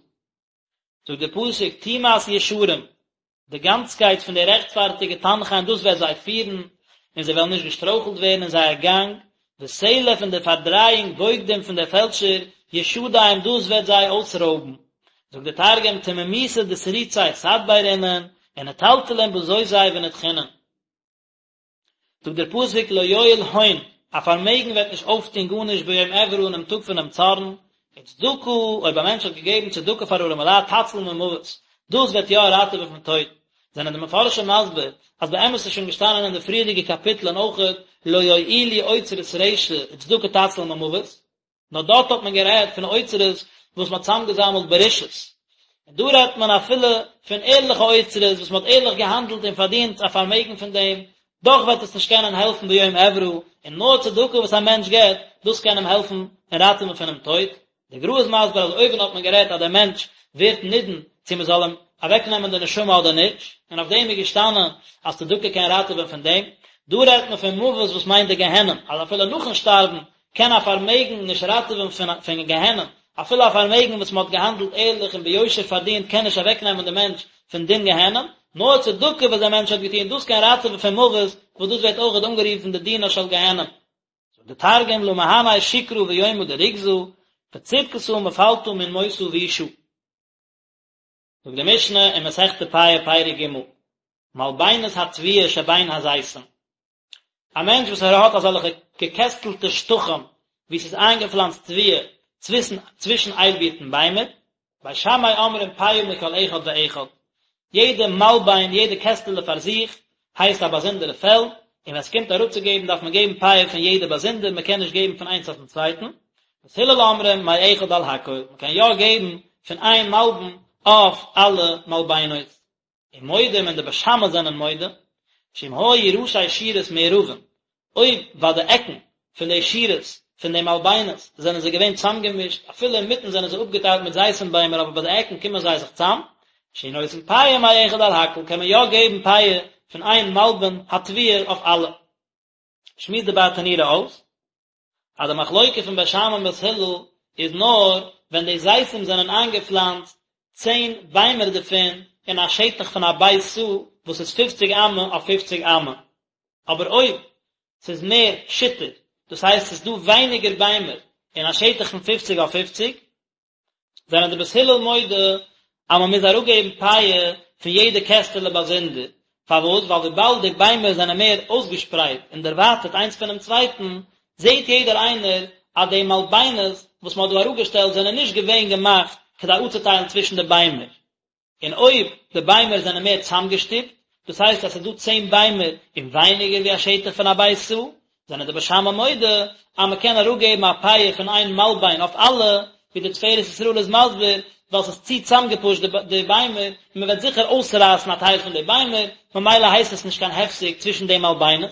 זאגט דער פסוק, תומת ישרים, די גאנצקייט פון די רעכטפארטיגע תנחם דאס וועט זיי פירן, און זיי וועלן נישט געשטרויכלט ווערן אין זייער גאנג, וסלף און די פארדרייאונג בוגדים פון די פעלשער, ישדם דאס וועט זיי אויסרויבן. זאגט דער תרגום, תמימותא דתריצי תדביר אינון, ונטלטלין בזוזי ונדחינן. זאגט דער פסוק לא יועיל הון, א פארמעגן וועט נישט אויפטון גארנישט ביום עברה אינעם טאג פונעם צארן, וצדקה, אויב א מענטש האט געגעבן צדקה פאר ארעמע לייט תציל ממוות, דאס וועט יא ראטעווען פון טויט, זענען די מפרשים מסביר אז באמת איז שוין געשטאנען אין די פריערדיגע קאפיטלען אויכעט לא יועילו אוצרות רשע וצדקה תציל ממוות, נאר דארט האט מען גערעדט פון אוצרות וואס מען האט צוזאמגעזאמלט ברשעות, און דא רעדט מען אפילו פון ערליכע אוצרות וואס מען האט ערליך געהאנדלט און פארדינט א פארמעגן פון דעם, דאך וועט עס נישט קענען העלפן ביום עברה, און נאר צדקה וואס א מענטש געבט, דאס קען אים העלפן און ראטעווען פונעם טויט. דער גר"א איז מסביר אז אויבן האט מען גערעדט אז דער מענטש ווערט נידון צו מען זאל אים אוועקנעמען די נשמה אדער נישט, און אויף דעם איז געשטאנען אז צדקה קען ראטעווען פון דעם, דא רעדט מען פון מוות וואס מיינט די גיהנום, אז אפילו נאכן שטארבן קען א פארמעגן נישט ראטעווען פון גיהנום, אפילו א פארמעגן וואס מען האט געהאנדלט ערליך און ביושר פארדינט קען נישט אוועקנעמען די מענטש פון דין גיהנום, נאר צדקה וואס דער מענטש האט געטון דאס קען ראטעווען פון מוות, וואס דאס ווערט אויכעט אנגערופן די דינה של גיהנום. זאגט דער תרגום לא מהני שיקרא ביומא דרוגזא, וצדקתא מפלטא מן מותא בישא. זאגט די משנה אין מסכת פאה פרק ג', מלבנות התבואה שבין הזיתים, א מענטש וואס ער האט אזעלכע געקעסטלטע שטחים וואו ס'איז איינגעפלאנצט תבואה צווישן צווישן איילבירטן ביימער, בית שמאי אומרים פאה מכל אחד ואחד, יעדע מלבן, יעדע קעסטעלע פאר זיך, הייסט א באזונדערע פעלד, און ווען ס'קומט אראפצוגעבן דארף מען געבן פאה פון יעדע באזונדער, מ'קען נישט געבן פון איינס אויפן צווייטן, בית הלל אומרים מאחד על הכל, מ'קען יא געבן פון איין מלבן אויף אלע מלבנות. ומודים און די בית שמאי זענען מודה, שאם היו ראשי שורות מעורבין, אויב ביי די עקן פון די שורות פון די מלבנות זענען זיי געווען צאמגעמישט, אפילו אינמיטן זענען זיי אפגעטיילט מיט זיתים ביימער אבער ביי די עקן קומען זיי זיך צאם, שהוא נותן פאה מאחד על הכל קען מען יא געבן פאה פון איין מלבן התבואה אויף אלע. שמועסט די ברטנורא אויס. אז די מחלוקה פון בית שמאי און בית הלל איז נאר ווען די זיתים זענען איינגעפלאנצט צען ביימער דערפון אין א שטח פון א בית סאה וואס איז פופציג אמה אויף פופציג אמה, אבער אויב ס'איז מער שיטער, דאס הייסט ס'איז דא ווייניגער ביימער אין א שטח פון פופציג אויף פופציג, זענען די בית הלל מודה אז מען מוז אראפגעבן פאה פון יעדע קעסטעלע באזונדער, פארוואס? ווייל וויבאלד די ביימער זענען מער אויסגעשפרייט און דערווייטערט איינס פונעם צווייטן, זעט יעדער איינער אז די מלבנות וואס מען האט דא אראפגעשטעלט זענען נישט געווען געמאכט כדי אפצוטיילן צווישן די ביימער. און אויב די ביימער זענען מער צאמגעשטופט, דאס הייסט אז ס'איז דא צען ביימער אין ווייניגער ווי א שטח פון א בית סאה, זענען די בית שמאי מודה אז מען קען אראפגעבן א פאה פון איין מלבן אויף אלע, ווי די תפארת ישראל איז מסביר, ווייל ס'איז צו צאמגעפושט די ביימער, און מען וועט זיכער אויסרייסן א טייל פון די ביימער, ממילא הייסט עס נישט קיין הפסק צווישן די מלבנות.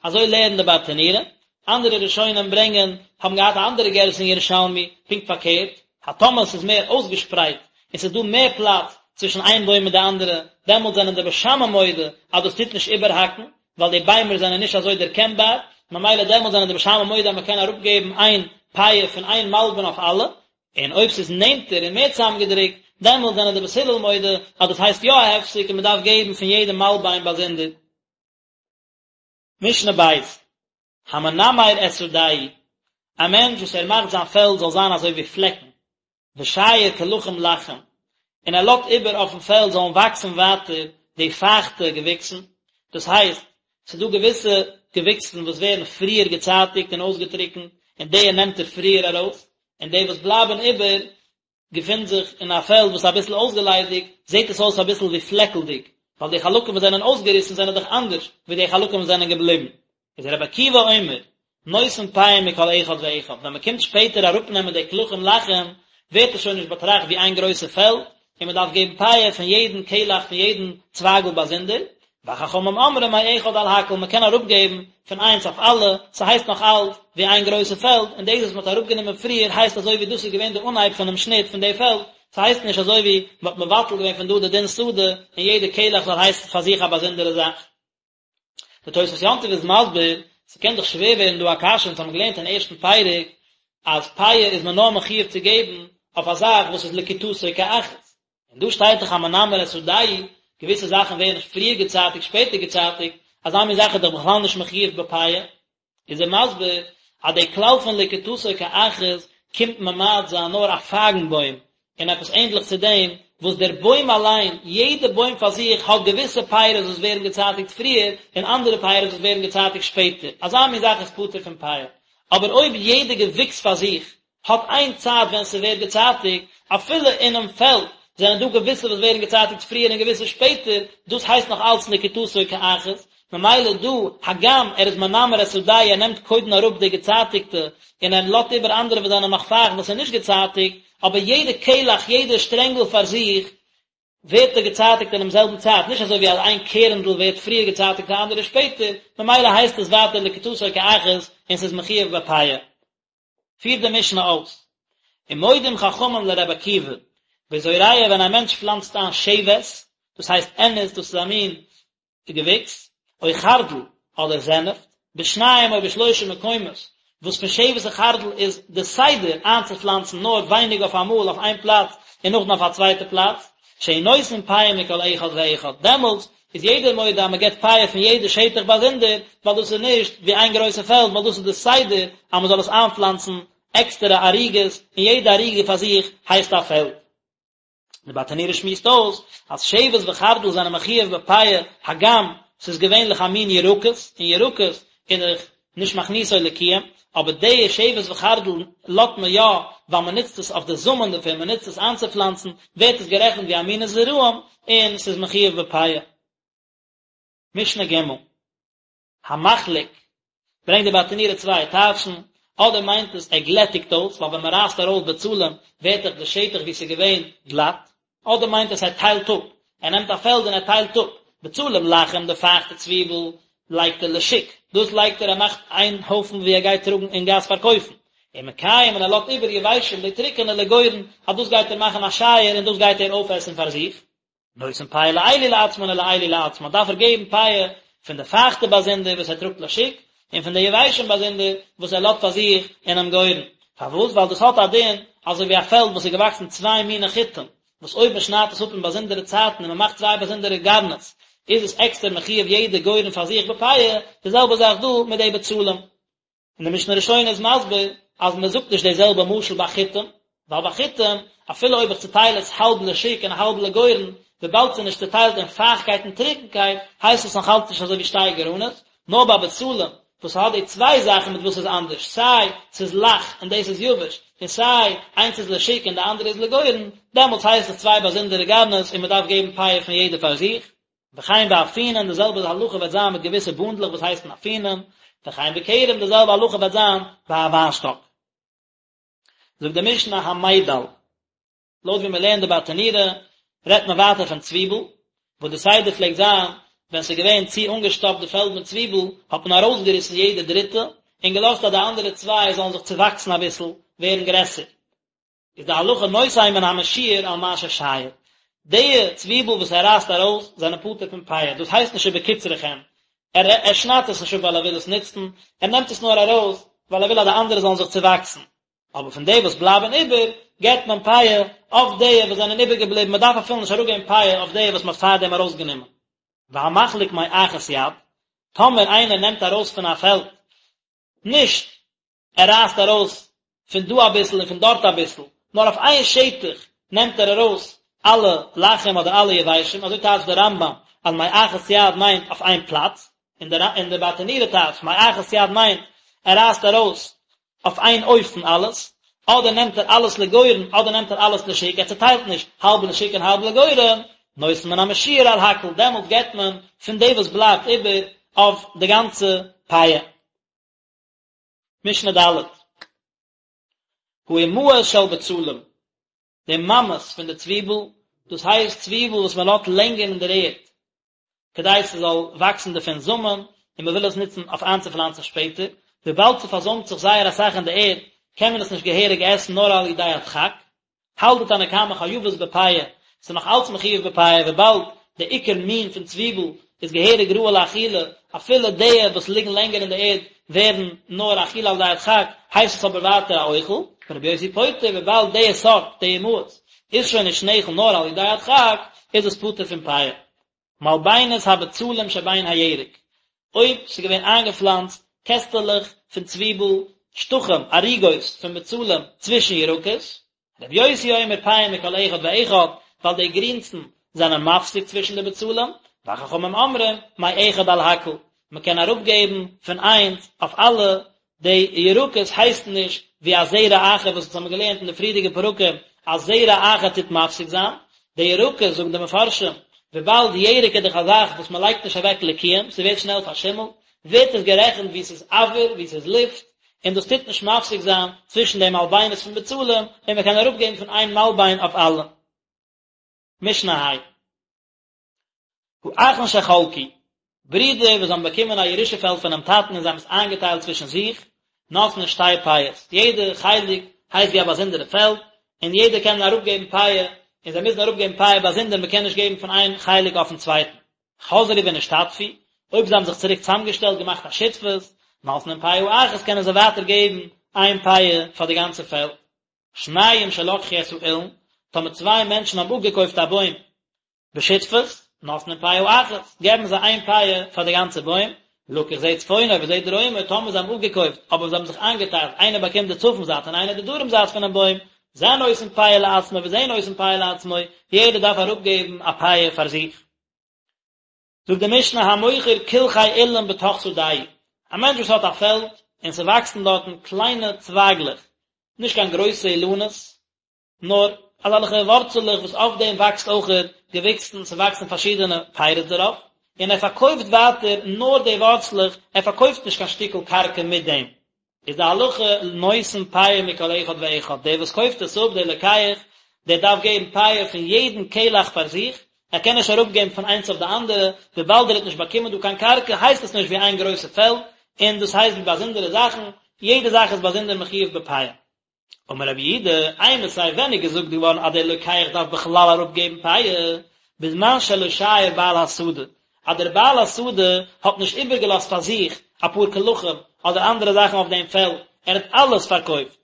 אזוי לערנט די ברטנורא, אנדערע ראשונים ברענגען, האבן געהאט א אנדערע גירסא אין ירושלמי, פונקט פארקערט, אז טאמער ס'איז מער אויסגעשפרייט און ס'איז דא מער פלאץ צווישן איין בוים מיט די אנדערע, דעמאלט זענען די בית שמאי מודה אז דאס טוט נישט איבערהאקן, ווייל די ביימער זענען נישט אזוי דערקענבאר, ממילא דעמאלט זענען די בית שמאי מודה אז מ'קען אראפגעבן איין פאה פון איין מלבן אויף אלע, און אויב ס'איז נענטער און מער צוזאמגעדרוקט, דעמאלט זענען די בית הלל מודה אז דאס הייסט יא א הפסק און מ'דארף געבן פון יעדע מלבן באזונדער. משנה בית, המנמר את שדהו, א מענטש וואס ער מאכט זיין פעלד זאל זיין אזוי ווי פלעקן, ושייר קלחים לחים, און ער לאזט איבער אויפן פעלד זאלן וואקסן ווייטער די פייכטע געוויקסן, דאס הייסט, ס'איז דא געוויסע געוויקסן וואס ווערן פריער געצייטיגט און אויסגעטריקנט, און די נעמט ער פריער ארויס, און די וואס בלייבן איבער געפינט זיך אין א פעלד וואס איז אביסל אויסגעליידיגט, זעט עס אויס אביסל ווי פלעקלדיג, ווייל די חלקים וואס זענען אויסגעריסן זענען דאך אנדערש ווי די חלקים וואס זענען געבליבן. איז רבי עקיבא אומר, נותן פאה מכל אחד ואחד, ווען מען קומט שפעטער אראפנעמען די קלחים לחים, ווערט עס שוין נישט באטראכט ווי איין גרויסע פעלד, און מען דארף געבן פאה פון יעדן קלח פון יעדן צווייגל באזונדער, וחכמים אומרים מאחד על הכל, מען קען אראפגעבן פון איינס אויף אלע, ס'הייסט נאך אלץ ווי איין גרויסע פעלד, און דאס וואס מען האט אראפגענומען פריער הייסט אזוי ווי דאס איז געווען די אנהייב פונעם שניט פון די פעלד, ס'הייסט נישט אזוי ווי מען האט מבטל געווען פון דא די דין שדה, און יעדע קלח זאל הייסן פאר זיך א באזונדערע זאך. די תוספות יום טוב איז מסביר, ס'קען דאך שווער ווערן דא א קשיא, אונז האבן געלערנט אין ערשטן פרק אז פאה איז מען נאר מחיוב צו געבן אויף א זאך וואס איז לקיטתו כאחת, און דא שטייט דאך המנמר את שדהו, געוויסע זאכן ווערן פריער געצייטיגט שפעטער געצייטיגט, אזא מין זאך איז דאך בכלל נישט מחיוב בפאה. איז ער מסביר אז די כלל פון לקיטתו כאחת קומט ממעט זיין נאר א פייגן בוים און עפעס ענדליך צו דעם, וואס דער בוים אליין, יעדע בוים פאר זיך האט געוויסע פירות וואס ווערן געצייטיגט פריער און אנדערע פירות וואס ווערן געצייטיגט שפעטער, אזא מין זאך איז פטור פון פאה. אבער אויב יעדע געוויקס פאר זיך האט איין צייט ווען ס'ווערט געצייטיגט, אפילו אינעם פעלד זענען דא געוויסע וואס ווערן געצייטיגט פריער און געוויסע שפעטער, דאס הייסט נאך אלץ לקיטתו כאחת, ממילא דא, הגם ער איז מנמר את שדהו ער נעמט קודם אראפ די געצייטיגטע און ער לאזט איבער אנדערע וואס זענען נאך פייכט וואס איז נישט געצייטיגט, אבער יעדע קלח יעדע שטרענגל פאר זיך ווערט ער געצייטיגט אינעם זעלבן צייט, נישט אזוי ווי אז איין קערנדל ווערט פריער געצייטיגט די אנדערע שפעטער, ממילא הייסט עס ווייטער לקיטתו כאחת און ס'איז מחיוב בפאה. פירט די משנה אויס, ומודים חכמים לר' עקיבא, בזורע ווען א מענטש פלאנצט איין שבת, דאס הייסט עניס, דאס איז א מין געוויקס, או חרדל, אדער זענעפט, בשניים או בשלושה מקומות, וואס פון שבת און חרדל איז די סדר איינצופלאנצן נאר ווייניג אויף אמאל אויף איין פלאץ און נאכדעם אויף א צווייטע פלאץ, שהוא נותן פאה מכל אחד ואחד, דעמאלטס איז יעדער מודה אז מען געבט פאה פון יעדע שטח באזונדער, ווייל דאס איז נישט ווי איין גרויסע פעלד, ווייל דאס איז די סדר אז מען זאל עס איינפלאנצן עקסטערע ערוגות, און יעדע ערוגה פאר זיך הייסט א פעלד. די ברטנורא שמועסט אויס אז שבת וחרדל זענען מחיוב בפאה, הגם ס'איז געווענליך א מין ירקות, און ירקות איז דאך נישט מכניסו לקיום, אבער די שבת וחרדל לאזט מען יא, ווייל מען נוצט עס אויף די זאמען דערפון, מען נוצט עס איינצופלאנצן, ווערט עס גערעכנט ווי א מיני זרעים, און ס'איז מחיוב בפאה. משנה ג', המחליק, ברענגט די ברטנורא צוויי טייטשן, אדער מיינט עס ער גלעטיגט אויס, ווייל ווען מען רייסט ארויס בצלים ווערט דאך די שטח ווי ס'איז געווען גלאט, אדער מיינט עס ער טיילט אפ, ער נעמט א פעלד און ער טיילט אפ, בצלים לחים די פייכטע צוויבל לייגט ער לשוק, דאס לייגט ער ער מאכט איין הויפן ווי ער גייט טראגן אין גאס פארקויפן, ומקיים און ער לאזט איבער יבשים די טרוקענע לגורן אז דאס גייט ער מאכן א שייער און דאס גייט ער אויפעסן פאר זיך. נותן פאה לאלו לעצמן ולאלו לעצמן, דארף ער געבן פאה פון די פייכטע באזונדער וואס ער טראגט לשוק, און פון די יבשים באזונדער וואס ער לאזט פאר זיך אינעם גורן. פארוואס? ווייל דאס האט א דין אזוי ווי א פעלד וואס איז געוואקסן צוויי מיני חיטים, וואס אויב מען שניידט עס אפ אין באזונדערע צייטן און מען מאכט צוויי באזונדערע גרנות, איז עס עקסטער מחיוב יעדע גורן פאר זיך בפאה, די זעלבע זאך דא מיט די בצלים. און די משנה ראשונה איז מסביר אז מען זאגט נישט די זעלבע משל ביי חיטים, ווייל ביי חיטים, אפילו אויב איך צוטייל עס האלב לשוק און האלב לגורן, וויבאלד ס'איז נישט צוטיילט אין פייכטקייט און טרוקנקייט, הייסט עס נאך אלץ נישט אזוי ווי שתי גרנות, נאר ביי בצלים, וואס ס'האט די צוויי זאכן מיט וואס ס'איז אנדערש, סיי ס'איז לח און דאס איז יבש, און סיי איינס איז לשוק און די אנדערע איז לגורן, דעמאלטס הייסט עס צוויי באזונדערע גרנות און מען דארף געבן פאה פון יעדע פאר זיך. וכן באפונין, די זעלבע הלכה וועט זיין מיט געוויסע בונדלעך וואס הייסן אפונין, וכן בכרם, די זעלבע הלכה וועט זיין ביי א וויינשטאק. זאגט די משנה המידל, לויט ווי מען לערנט די ברטנורא, רעדט מען ווייטער פון צוויבל, וואס די סדר פלעגט זיין, ווען ס'איז געווען צו אנגעשטאפט די פעלד מיט צוויבל, האט מען ארויסגעריסן יעדע דריטע, און געלאזט אז די אנדערע צוויי זאלן זיך צווואקסן אביסל, ווערן גרעסער. איז די הלכה נותן מן המשוער על מה ששייר. די צוויבל וואס ער רייסט ארויס זענען פטור פון פאה, דאס הייסט נישט ובקוצרכם, ער ער שניידט עס נישט אפ ווייל ער וויל עס נוצן, ער נעמט עס נאר ארויס ווייל ער וויל אז די אנדערע זאלן זיך צווואקסן. אבער פון די וואס בלייבן איבער, געבט מען פאה אויף די וואס זענען איבערגעבליבן, מען דארף אפילו נישט אראפגעבן פאה אויף די וואס מען האט פארדעם ארויסגענומען. והמחליק מאחת יד, טאמער איינער נעמט ארויס פון א פעלד, נישט ער רייסט ארויס פון דא אביסל און פון דארט אביסל, נאר אויף איין שטח נעמט ער ארויס אלע לחים אדער אלע יבשים, אזוי טייטשט דער רמב"ם אז מאחת יד מיינט אויף איין פלאץ, און דער און דער ברטנורא טייטשט מאחת יד מיינט ער רייסט ארויס אויף איין אופן אלעס, אדער נעמט ער אלעס לגורן אדער נעמט ער אלעס לשוק, ער צעטיילט נישט האלב לשוק און האלב לגורן, נותן מן המשוער על הכל, דעמאלט געבט מען פון די וואס בלייבט איבער אויף די גאנצע פאה. משנה ד'. האימהות של בצלים. די מאמעס פון די צוויבל, דאס הייסט צוויבל וואס מען לאזט לענגער אין דער ערד כדי ס'זאל וואקסן דערפון זאמען, און מען וויל עס נוצן אויף איינצופלאנצן שפעטער, וויבאלד ס'פארזוימט זיך זייער אסאך אין די ערד, קען מען עס נישט געהעריג עסן נאר על ידי הדחק. האלט די תנא קמא חייבות בפאה, ס'איז נאך אלץ מחויב בפאה וויבאלד די עיקר מין פון צוויבל איז געהעריג ראוי לאכילה, אפילו די וואס ליגן לענגער אין די ערד ווערן נאר אכילה על ידי הדחק, הייסט עס אבער ווייטער א אוכל, ורבי יוסי פוטר וויבאלד די סארט, די אמהות, איז שוין נישט נאכל נאר על ידי הדחק, איז עס פטור פון פאה. מלבנות הבצלים שבין הירק, אויב ס'איז געווען איינגעפלאנצט קעסטעלעך פון צוויבל, שטחים, ערוגות, פון בצלים צווישן ירקות, רבי יוסי אומר פאה מכל אחד ואחד, ווייל די גרינסן זענען מפסיק צווישן די בצלים, וחכמים אומרים מאחד על הכל, מ'קען אראפגעבן פון איינס אויף אלע די ירקות הייסט נישט ווי א זרע אחר וואס אונז האבן געלערנט אין די פריערדיגע פרקים אז זרע אחר טוט מפסיק זיין, די ירקות זאגן די מפרשים וויבאלד ירק איז דאך א זאך וואס מען לייגט נישט אוועק לקיום ס'ווערט שנעל פארשימלט ווערט עס גערעכנט ווי ס'איז אוויר ווי ס'איז לופט און דאס טוט נישט מפסיק זיין צווישן די מלבנות פון בצלים און מען קען אראפגעבן פון איין מלבן אויף אלע. משנה ה'. האחין שחלקו, ברידער וואס האבן באקומען א ירושה פעלד פונעם טאטן און זיי האבן עס איינגעטיילט צווישן זיך, נותנין שתי פאות, יעדע חלק הייסט ווי א באזונדערע פעלד, און יעדער קען אראפגעבן פאה, און זיי מוזן אראפגעבן פאה באזונדער, מען קען נישט געבן פון איין חלק אויפן צווייטן. חזרו ונשתתפו, אויב זיי האבן זיך צוריק צוזאמגעשטעלט, געמאכט א שותפות, נותנין פאה אחת, קענען זיי ווייטער געבן איין פאה פאר די גאנצע פעלד. שניים שלקחו את האילן, טאמער צוויי מענטשן האבן אפגעקויפט א בוים, בשותפות, נותנין פאה אחת, געבן זיי איין פאה פאר די גאנצע בוים, לקח זה צפונו וזה דרומו, טאמער זיי האבן אפגעקויפט, אבער זיי האבן זיך איינגעטיילט, איינער באקומט די צפון זייט און איינער די דרום זייט פונעם בוים, זה נותן פאה לעצמו וזה נותן פאה לעצמו, יעדער דארף אראפגעבן א פאה פאר זיך. זאגט די משנה המוכר קלחי אילן בתוך שדהו, א מענטש וואס האט א פעלד און ס'וואקסן דארטן קליינע צווייגלעך, נישט קיין גרויסע אילנות, נאר אזעלכע ווארצעלעך וואס אויף דעם וואקסט אויכעט געוויקסן, ס'וואקסן פארשידענע פירות דערויף, און ער פארקויפט ווייטער נאר די ווארצלעך, ער פארקויפט נישט קיין שטיקל קרקע מיט דעם, איז די הלכה נותן פאה מכל אחד ואחד, דער וואס קויפט עס אפ, דער לוקח, דער דארף געבן פאה פון יעדן קלח פאר זיך, ער קען נישט אראפגעבן פון איינס אויף די אנדערע, וויבאלד ער האט נישט באקומען דא קיין קרקע הייסט עס נישט ווי איין גרויסע פעלד, און דאס הייסט ווי באזונדערע זאכן, יעדע זאך איז באזונדער מחויב בפאה. אמר רבי יהודה, אימתי ווען איז געזאגט געווארן אז דער לוקח דארף בכלל אראפגעבן פאה, בזמן שלא שייר בעל השדה, אז דער בעל השדה האט נישט איבערגעלאזט פאר זיך אפאר קלחים אדער אנדערע זאכן אויף דעם פעלד, ער האט אלעס פארקויפט,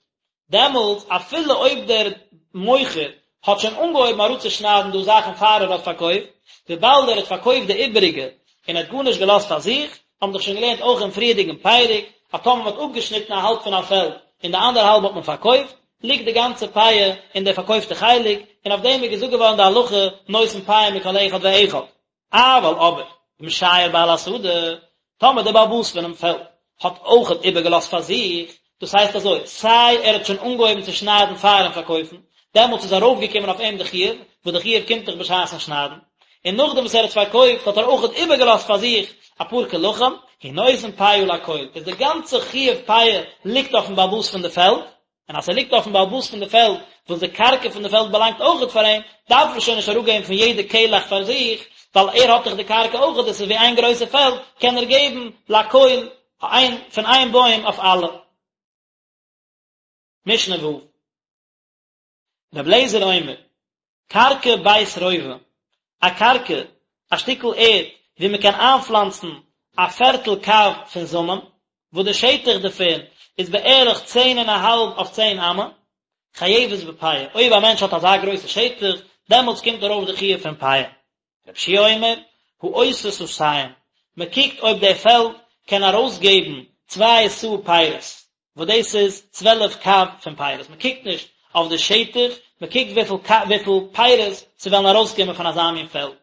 דעמאלטס אפילו אויב דער מוכר האט שוין אנגעהויבן אראפצושניידן דא זאכן פאר ער האט פארקויפט, וויבאלד ער האט פארקויפט די איבעריגע און ער האט גארנישט געלאזט פאר זיך, האבן דאך שוין געלערנט אויך אין פריערדיגן פרק, אז טאמער מען האט אפגעשניטן א האלב פון א פעלד און די אנדערע האלב האט מען פארקויפט, ליגט די גאנצע פאה אין די פארקויפטע חלק, און אויף דעם איז געזאגט געווארן די הלכה נותן פאה מכל אחד ואחד. אבל אבער, אם שייר בעל השדה, טאמער דער בעל הבית פונעם פעלד האט אויכעט איבערגעלאזט פאר זיך, דאס הייסט אזוי, סיי ער האט שוין אנגעהויבן צו שניידן פארן פארקויפן, דעמאלטס איז ארויפגעקומען אויף אים די חיוב, וואס די חיוב קומט דאך בשעת'ן שניידן, און נאכדעם וואס ער האט פארקויפט האט ער אויכעט איבערגעלאזט פאר זיך אפאר קלחים, הוא נותן פאה לכל, איז די גאנצע חיוב פאה ליגט אויפן בעל הבית פון די פעלד, און אז ס'ליגט אויפן בעל הבית פון די פעלד, וואס די קרקע פון די פעלד באלאנגט אויכעט פאר אים, דארף ער שוין נישט אראפגעבן פון יעדע קלח פאר זיך, ווייל ער האט דאך די קרקע אויכעט, עס איז ווי איין גרויסע פעלד, קען ער געבן לכל איין פון איין בוים אויף אלע. משנה ו'. רבי אליעזר אומר, קרקע בית רובע, א קרקע, א שטיקל ערד, וואו מען קען איינפלאנצן א פערטל קב פון זאמען, וואס די שטח דערפון איז בערך צען און א האלב אויף צען אמה, חייבת בפאה, אויב א מענטש האט אזא גרויסע שטח, דעמאלטס קומט ארויף די חיוב פון פאה. רבי יהושע אומר, העושה סאתים, מען קוקט אויב דער פעלד קען ארויסגעבן צוויי סאה פירות, וואס דאס איז צוועלף קב פון פירות, מען קוקט נישט אויף די שטח, מען קוקט וויפיל וויפיל פירות ס'וועלן ארויסקומען פון אזא מין פעלד.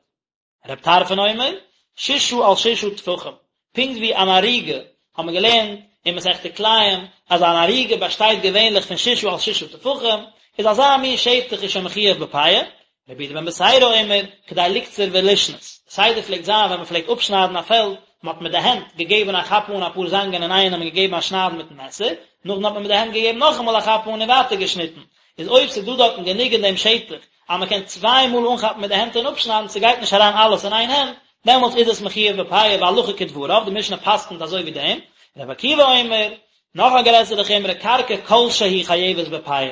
רבי טרפון אומר, ששה על ששה טפחים, פונקט ווי אן ערוגה, האט מען געלערנט אין מסכת כלאים אז אן ערוגה באשטייט געווענליך פון ששה על ששה טפחים, איז אזא מין שטח איז שוין מחויב בפאה, רבי יהודה בן בתירא אומר, כדי לקצור ולשנות, די סדר פלעגט זיין ווען מען פלעגט אפשניידן א פעלד, מען האט מיט די הענט געגעבן א כאפ אן אפאר זאנגען אינאיינעם און געגעבן א שנייד מיטן מעסער, נאכדעם האט מען מיט די הענט געגעבן נאכאמאל א כאפ אן און ווייטער געשניטן. איז אויב ס'איז דא דארטן גענוג אין דעם שטח אז מ'קען צוויי מאל אנכאפן מיט די הענט און אפשניידן, ס'גייט נישט אריין אלעס אין איין הענט, דעמאלטס איז עס מחויב בפאה והלכה כדבריו, די משנה פסק'נט אזוי ווי דעם, רבי עקיבא אומר, נאך א גרעסערע חומרא, קרקע כל שהיא חייבת בפאה.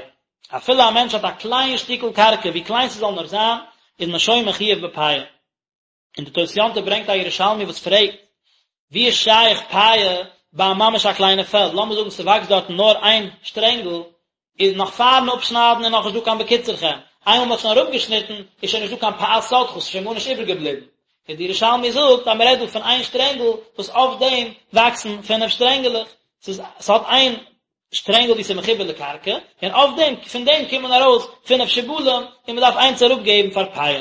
אפילו א מענטש האט א קליין שטיקל קרקע, ווי קליין ס'זאל נאר זיין, איז מען שוין מחויב בפאה. און די תוס' יום טוב ברענגט א ירושלמי וואס פרעגט, ווי איז שייך פאה ביי ממש א קליינע פעלד, לאמיר זאגן ס'וואקסט דארטן נאר איין שטרענגל, איז נאך פארן אפשניידן איז נאכנישט דא קיין בקצרכם, איינמאל מ'האט שוין אראפגעשניטן איז שוין נישט דא קיין פאת שדך, ס'איז שוין גארנישט איבערגעבליבן. און די ירושלמי זאגט אז מ'רעדט דא פון איין שטרענגל וואס אויף דעם וואקסן פינף שטרענגעלעך, ס'איז ס'האט איין שטרענגל ווי ס'איז מחובר לקרקע, און אויף דעם פון דעם קומען ארויס פינף שיבולים, און מ'דארף איינס אראפגעבן פאר פאה.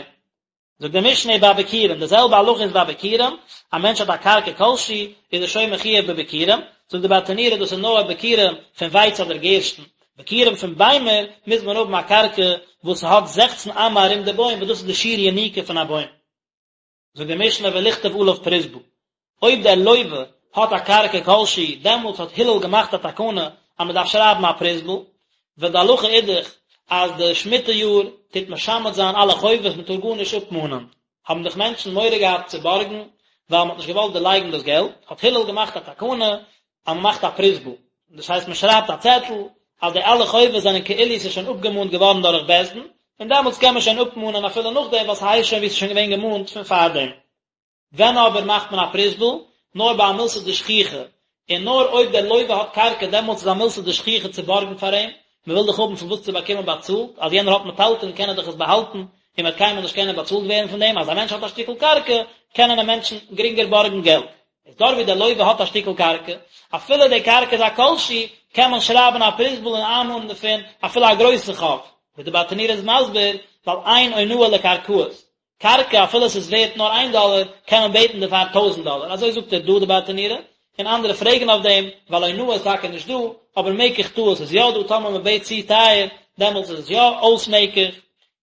זאגט די משנה ובביכורים, די זעלבע הלכה איז ביי ביכורים, א מענטש האט א קרקע כלשהי, איז ער שוין מחויב בביכורים, זאגט די ברטנורא דאס איז נאר ביכורים פון ווייץ אדער גערשטן, ביכורים פון ביימער מוז מען האבן א קרקע וואס ס'האט זעכצן אמה ארום די בוים וואס דאס איז די שיעור יניקה פון א בוים. זאגט די משנה ולכתוב עליו פרוזבול, אויב דער לוה האט א קרקע כלשהי, דעמאלטס האט הלל געמאכט א תקנה אז מען דארף שרייבן א פרוזבול, ווייל די הלכה איז דאך אז די שמיטה יאר טוט משמט זיין אלע חובות מען טאר גארנישט אפמאנען, האבן דאך מענטשן מורא געהאט צו בארגן ווייל מען האט נישט געוואלט דערלייגן דאס געלט, האט הלל געמאכט א תקנה אז מען מאכט א פרוזבול, דאס הייסט מען שרייבט א צעטל אז די אלע חובות זענען כאילו ס'איז שוין אפגעמאנט געווארן דורך בית דין, און דעמאלטס קען מען שוין אפמאנען אפילו נאכדעם ווייל ס'הייסט שוין ווי ס'איז שוין געווען געמאנט פון פארדעם. ווען אבער מאכט מען א פרוזבול? נאר ביי א מילתא דשכיחא, און נאר אויב דער לוה האט קרקע דעמאלטס איז א מילתא דשכיחא צו בארגן פאר אים, מען וויל דאך האבן פון וואס צו באקומען באצאלט, אז יענער האט מטלטלין קען ער דאך עס באהאלטן און מען וועט קיינמאל נישט קענען באצאלט ווערן פון דעם, אז א מענטש האט א שטיקל קרקע קענען אים מענטשן גרינגער בארגן געלט. איז דארט ווי דער לוה האט א שטיקל קרקע, אפילו די קרקע איז א כל שהוא, קען מען שרייבן א פרוזבול און איינמאנען דערפון אפילו א גרויסע חוב, ווי די ברטנורא איז מסביר, ווייל אין אונאה לקרקעות, קרקע אפילו עס איז ווערט נאר איין דאלער קען מען בעטן דערפאר טויזנט דאלער, אזוי זאגט ער דא די ברטנורא, און אנדערע פרעגן אויף דעם, ווייל אונאה איז טאקע נישט דא, אבער מקח טעות איז יא דא, טאמער מען בעט צו טייער, דעמאלטס איז עס יא אויס מקח,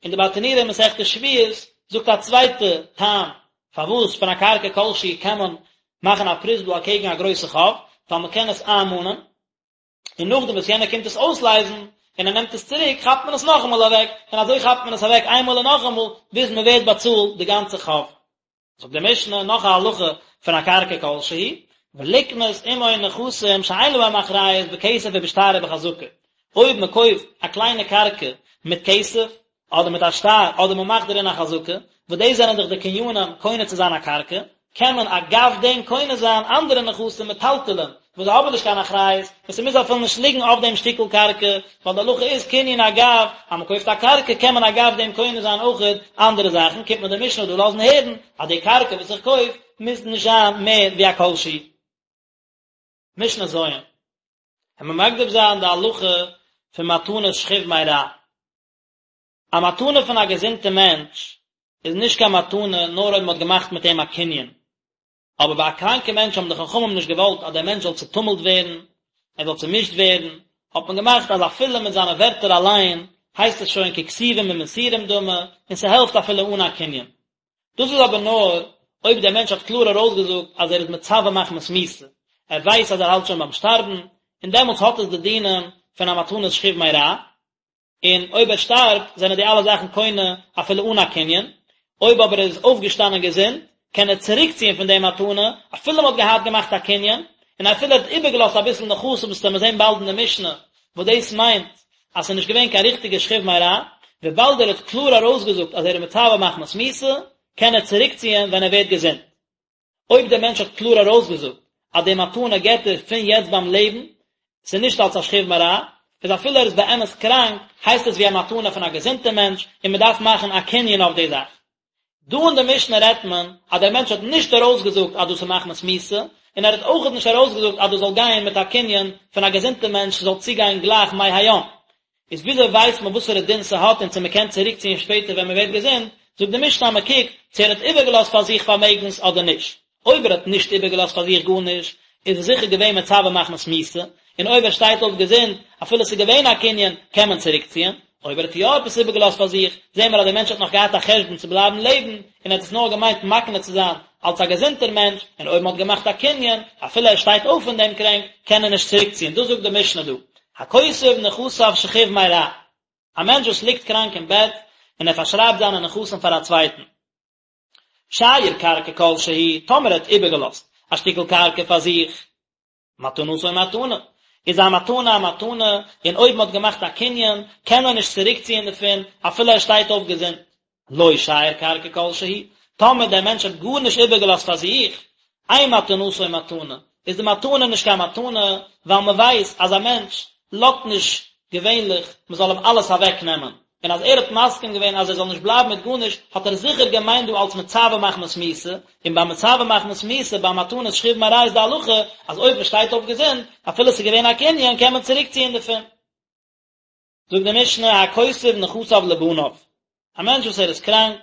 און די ברטנורא אין מסכת שביעית זאגט א צווייטע טעם פארוואס פון א קרקע כלשהי קען מען מאכן א פרוזבול אקעגן א גרויסע חוב, ווייל מען קען עס איינמאנען, און נאכדעם וואס יענער קומט עס אויסלייזן און ער נעמט עס צוריק כאפט מען עס נאכאמאל אוועק, און אזוי כאפט מען עס אוועק איינמאל און נאכאמאל ביז מען ווערט באצאלט די גאנצע חוב. זאגט די משנה נאך א הלכה פון א קרקע כלשהי, ולקנות עמו נכסים שאין להם אחריות בכסף ובשטר ובחזקה, אויב מען קויפט א קליינע קרקע מיט כסף אדער מיט א שטר, אדער מען מאכט דערין א חזקה, וואס דאס זענען דאך די קנינים קונה צו זיין א קרקע, קען מען אגב דעם קונה זיין אנדערע נכסים מטלטלין, וואס זיי האבן נישט קיין אחריות, און ס'מוז אפילו נישט ליגן אויף דעם שטיקל קרקע, ווייל די הלכה איז קנין אגב, אז מען קויפט א קרקע קען מען אגב דעם קונה זיין אויכעט אנדערע זאכן, קומט מיר די משנה דא לאזן הערן אז די קרקע וואס איך קויף מוז נישט זיין מער ווי א כל שהוא. משנה ז'. וועלן מיר מקדים זיין די הלכה פון מתנת שכיב מרע. א מתנה פון א געזונטע מענטש איז נישט קיין מתנה נאר אויב מען האט געמאכט מיט אים א קנין, אבער ביי א קראנקע מענטש האבן די חכמים נישט געוואלט אז דער מענטש זאל צוטומלט ווערן, ער זאל צומישט ווערן, האט מען געמאכט אז אפילו מיט זיינע ווערטער אליין הייסט עס שוין ככתובים ומסורים דמי, און ס'העלפט אפילו אן א קנין. דאס איז אבער נאר אויב דער מענטש האט קלאר ארויסגעזאגט אז ער איז מצווה מחמת מיתה, ער ווייסט אז ער האלט שוין ביים שטארבן, און דעמאלטס האט עס די דינים פון א מתנת שכיב מרע, און אויב ער שטארבט זענען די אלע זאכן קונה אפילו אן א קנין, אויב אבער ער איז אויפגעשטאנען געזונט, קען ער צוריקציען פון די מתנה, אפילו מען האט געהאט געמאכט א קנין, און אפילו ער האט איבערגעלאזט אביסל נכסים וואס וועט מען זען באלד אין די משנה, וואס דאס מיינט אז ס'איז נישט געווען קיין ריכטיגע שכיב מרע, וויבאלד ער האט קלאר ארויסגעזאגט אז ער איז מצווה מחמת מיתה, קען ער צוריקציען ווען ער ווערט געזונט. אויב דער מענטש האט קלאר ארויסגעזאגט אז די מתנה געבט ער פון יעצט ביים לעבן, ס'איז נישט אלס א שכיב מרע, איז אפילו ער איז באמת קראנק, הייסט עס ווי א מתנה פון א געזונטע מענטש, און מ'דארף מאכן א קנין אויף די זאך. דא אין די משנה רעדט מען אז דער מענטש האט נישט ארויסגעזאגט אז דאס איז מחמת מיתה, און ער האט אויכעט נישט ארויסגעזאגט אז דאס זאל גיין מיט א קנין פון א געזונטע מענטש ס'זאל צוגיין גלייך מהיום. איז וויאזוי ווייסט מען וואסערע דין ס'האט און צו מ'קען צוריקציען שפעטער ווען מ'ווערט געזונט, זאגט די משנה אז מ'קוקט צו ער האט איבערגעלאזט פאר זיך פארמעגנס אדער נישט. אויב ער האט נישט איבערגעלאזט פאר זיך גארנישט, איז ער זיכער געווען מצווה מחמת מיתה, און אויב ער שטייט אויף געזונט, אפילו עס איז געווען א קנין, קען מען צוריקציען. אויב ער האט יא עפעס איבערגעלאזט פאר זיך, זעהן מיר אז דער מענטש האט נאך געהאט א חשבון צו בלייבן לעבן, און ער האט עס נאר געמיינט מקנה צו זיין אלס א געזונטער מענטש, און אויב מען האט געמאכט א קנין, אפילו ער שטייט אויף פון דעם קרענק, קען ער נישט צוריקציען. דאס זאגט די משנה דא, הכותב נכסיו שכיב מרע. א מענטש וואס ליגט קראנק אין בעט און ער פארשרייבט זיינע נכסים פאר א צווייטן. שייר קרקע כל שהוא, טאמער ער האט איבערגעלאזט א שטיקל קרקע פאר זיך, מתנתו מתנה, איז זיין מתנה א מתנה, און אויב מען האט געמאכט א קנין, קען ער נישט צוריקציען דערפון, אפילו ער שטייט אויף געזונט. לא שייר קרקע כל שהוא, טאמער דער מענטש האט גארנישט איבערגעלאזט פאר זיך, אין מתנתו מתנה, איז די מתנה נישט קיין מתנה, ווייל מען ווייסט אז א מענטש לאזט נישט געווענליך מען זאל אים אלעס אוועק נעמען, און אז ער האט מסכים געווען אז ער זאל נישט בלייבן מיט גארנישט, האט ער זיכער געמיינט דא אלס מצווה מחמת מיתה, און ביי מצווה מחמת מיתה, ביי מתנת שכיב מרע איז די הלכה אז אויב מען שטייט אויף געזונט, אפילו ס'איז געווען א קנין, קען מען צוריק ציען דערפון. זאגט די משנה, הכותב נכסיו לבניו, א מענטש וואס ער איז קראנק,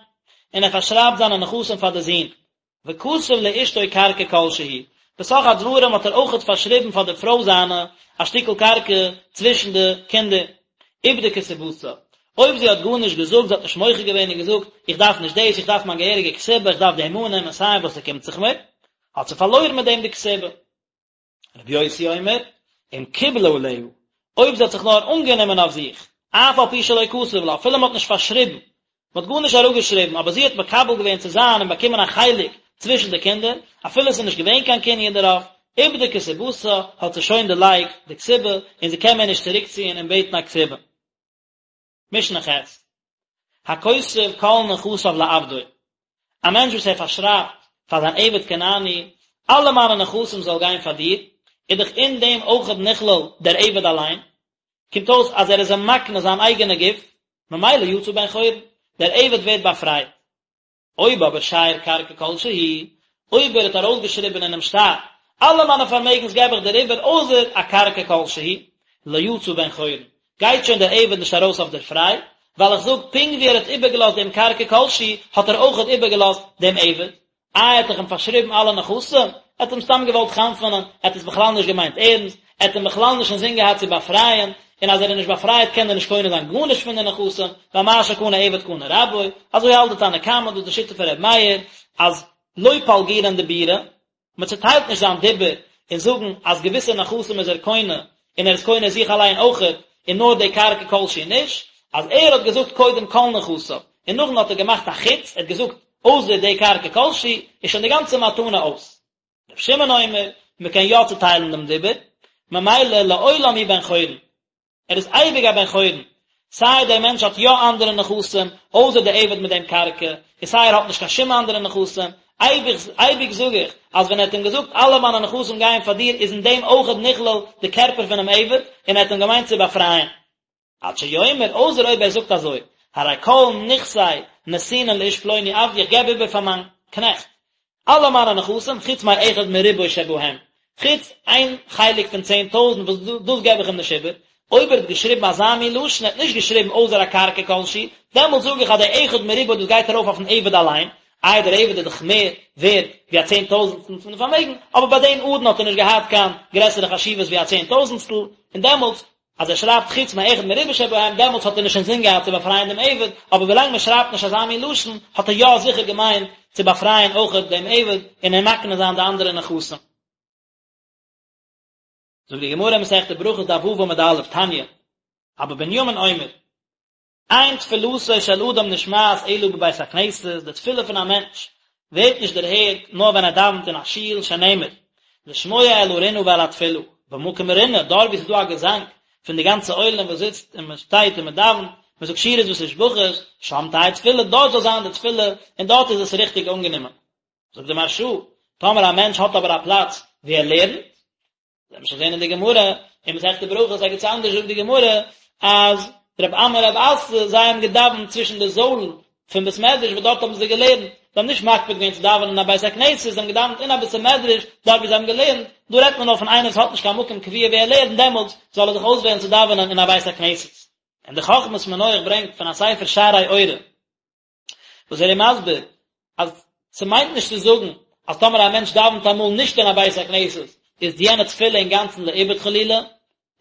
און ער פארשרייבט זיינע נכסים פאר די זין, וכתב לאשתו קרקע כל שהוא, בתוך הדברים האט ער אויכעט פארשריבן פאר די פרוי זיינע א שטיקל קרקע צווישן די קינדער, איבדה כתובתה, אויב זי האט גארנישט געזאגט, זי האט נישט מוחה געווען און געזאגט, איך דארף נישט דאס, איך דארף מיין געהעריגע כתובה, איך דארף די מנה מאתים וואס ס'קומט זיך מיר, האט זי פארלוירן מיט דעם די כתובה. רבי יוסי אומר, אם קיבלה עליה, אויב זי האט זיך נאר אנגענומען אויף זיך, אף על פי שלא כתב לה, אפילו מען האט נישט פארשריבן, מען האט גארנישט אראפגעשריבן, אבער זי האט מקבל געווען צו זיין און באקומען א חלק צווישן די קינדער, אפילו עס איז נישט געווען קיין קנין דערויף, איבדה כתובתה, האט זי שוין דערלייגט די כתובה, און זי קען מער נישט צוריקציען און בעטן א כתובה. משנה ח', הכותב כל נכסיו לעבדו, א מענטש וואס ער פארשרייבט פאר זיין עבד כנעני, אלע מיינע נכסים זאל גיין פאר דיר, איז דאך אין דעם אויכעט נכלל דער עבד אליין, קומט אויס אז ער איז אים מקנה זיין אייגענע גוף, ממילא יצא בן חורין, דער עבד ווערט באפרייט. אויב אבער שייר קרקע כל שהוא, אויב ער האט ארויסגעשריבען אינעם שטר, אלע מיינע פארמעגנס געב איך דיר איבער אויסער א קרקע כל שהוא, לא יצא בן חורין, גייט שוין דער עבד נישט ארויס אויף דער פריי, ווייל איך זאג פונקט ווי ער האט איבערגעלאזט דעם קרקע כל שהוא, האט ער אויכעט איבערגעלאזט דעם עבד. איי ער האט דאך אים פארשריבן אלע נכסים? ער האט אים סתם געוואלט חנפ'ענען, ער האט עס בכלל נישט געמיינט ערנסט, ער האט אים בכלל נישט אינזין געהאט צו באפרייען, און אז ער איז נישט באפרייט קען ער נישט קונה זיין גארנישט פון די נכסים, ווייל מה שקנה עבד קנה רבו, אזוי האלט די תנא קמא, דאס איז די שיטה פון ר' מאיר, אז לא פלגירן דיבורא, מען צוטיילט נישט זיין דיבור און זאגן אז געוויסע נכסים איז ער קונה און ער איז קונה זיך אליין אויכעט און נאר די קרקע כל שהוא נישט, אז ער האט געזאגט קודם כל נכסיו און נאכדעם האט ער געמאכט א חוץ, ער האט געזאגט אויסער די קרקע כל שהוא, איז שוין די גאנצע מתנה אויס. ר' שמעון אומר, מען קען יא צוטיילן דעם דיבור, ממילא לעולם הוא בן חורין. ער איז אייביג א בן חורין, סיי דער מענטש האט יא אנדערע נכסים אויסער די עבד מיט דעם קרקע, און סיי ער האט נישט קיין שום אנדערע נכסים, אייביג אייביג זאג איך אז ווען ער האט אים געזאגט אלע מיינע נכסים גייען פאר דיר איז אין דעם אויכעט נכלל די קערפער פונעם עבד, און ער האט אים געמיינט צו באפרייען. עד שיאמר, אויסער אויב ער זאגט אזוי, הרי כל נכסי נתונין לאיש פלוני עבדי איך געב איבער פאר מיין קנעכט אלע מיינע נכסים חוץ מאחד מריבוא שבהם, חוץ איין חלק פון 10,000 וואס דאס געב איך אים נישט איבער, אויב ער האט געשריבן אזא מין לשון, ער האט נישט געשריבן אויסער א קרקע כלשהי, דעמאלט זאג איך אז דער אחד מריבוא דאס גייט ארויף אויפן עבד אליין, איי דער עבד איז דאך מער ווערד ווי א צען טויזענטסטל פון די פארמעגן, אבער ביי דעם אדון האט ער נישט געהאט קיין גרעסערע חשיבות ווי א צען טויזענטסטל, און דעמאלטס אז ער שרייבט חוץ מאחד מריבוא שבהם דעמאלטס האט ער נישט אינזין געהאט צו באפרייען דעם עבד, אבער ווילאנג מען שרייבט נישט אזא מין לשון האט ער יא זיכער געמיינט צו באפרייען אויכעט דעם עבד און אים מקנה זיין די אנדערע נכסים. זאגט די גמרא אין מסכת ברכות דף ו' עמוד א', תניא, אבא בנימין אומר, אין תפילתו של אדם נשמעת אלא בבית הכנסת, די תפילה פון א מענטש ווערט נישט דערהערט נאר ווען ער דאווענט אין א שול, שנאמר, לשמוע אל הרינה ואל התפילה, במקום רינה, דארט וואו ס'איז דא א געזאנג פון די גאנצע עולם וואס זיצט און מען שטייט און מען דאווענט, מען זאגט שירות ותשבחות, שם תהא תפילה, דארט זאל זיין די תפילה, און דארט איז עס ריכטיג אנגענומען. זאגט די מהרש"א, טאמער א מענטש האט אבער א פלאץ וואו ער לערנט, וועט מען שוין זען אין די גמרא, אין מסכת ברכות ערגעץ אנדערש זאגט די גמרא, אז רב אמי און רב אסי זיי האבן געדאווענט צווישן די זוילן פון בית מדרש וואס דארט האבן זיי געלערנט, זיי האבן נישט מקפיד געווען צו דאווענען אין א בית הכנסת, זיי האבן געדאווענט אין א בית המדרש דארט ווי זיי האבן געלערנט, דא רעדט מען נאר פון איינער וואס האט נישט קיין מקום קבוע ווי ער לערנט דעמאלטס זאל ער זיך אויסוועלן צו דאווענען אין א בית הכנסת. און די חכמת מנוח ברענגט פון א ספר שערי אורה, וואס ער איז מסביר אז ס'מיינט נישט צו זאגן אז טאמער א מענטש דאווענט אמאל נישט אין א בית הכנסת איז יענע תפילה אינגאנצן לאיבוד חלילה,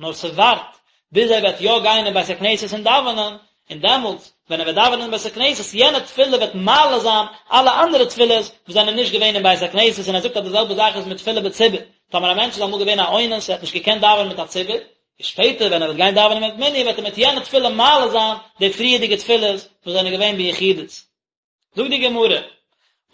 נאר ס'ווארט ביז ער וועט יא גיין אין בית הכנסת און דאווענען, און דעמאלטס ווען ער וועט דאווענען אין בית הכנסת יענע תפילה וועט מעלה זיין אלע אנדערע תפילות וואס זענען נישט געווען אין בית הכנסת, און ער זאגט אז די זעלבע זאך איז מיט תפילה בציבור, טאמער א מענטש איז אמאל געווען א אונס ער האט נישט געקענט דאווענען מיט א ציבור, און שפעטער ווען ער וועט גיין דאווענען מיט מנין וועט ער מיט יענע תפילה מעלה זיין די פריערדיגע תפילות וואס זענען געווען ביחידות. זאגט די גמרא,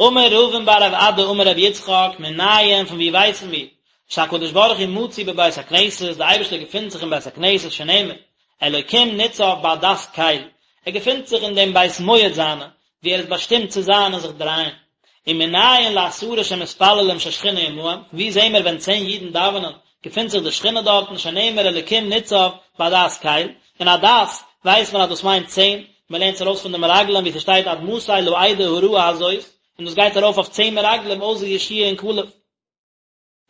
אמר רבין בר רב אדא אמר רבי יצחק, מנין פון ווי ווייסן מיר, שהקדוש ברוך הוא מצוי בבית הכנסת, די אייבערשטער געפינט זיך אין בית הכנסת, שנאמר, אלוקים ניצב בעדת קל, ער געפינט זיך אין דעם בית מועד זיינע, וואו ער איז באשטימט צו זיין און זיך דרייען. ומנין לעשרה שמתפללים ששכינה עמהם, פון וואו זעהן מיר ווען צען אידן דאווענען, געפינט זיך די שכינה דארטן, שנאמר אלוקים ניצב בעדת קל, און עדת ווייסט מען אז דאס מיינט צען, מען לערנט עס ארויס פון די מרגלים ווי ס'שטייט עד מתי לעדה הרעה הזאת, און דאס גייט ארויף אויף צען מרגלים אויסער יהושע און כלב.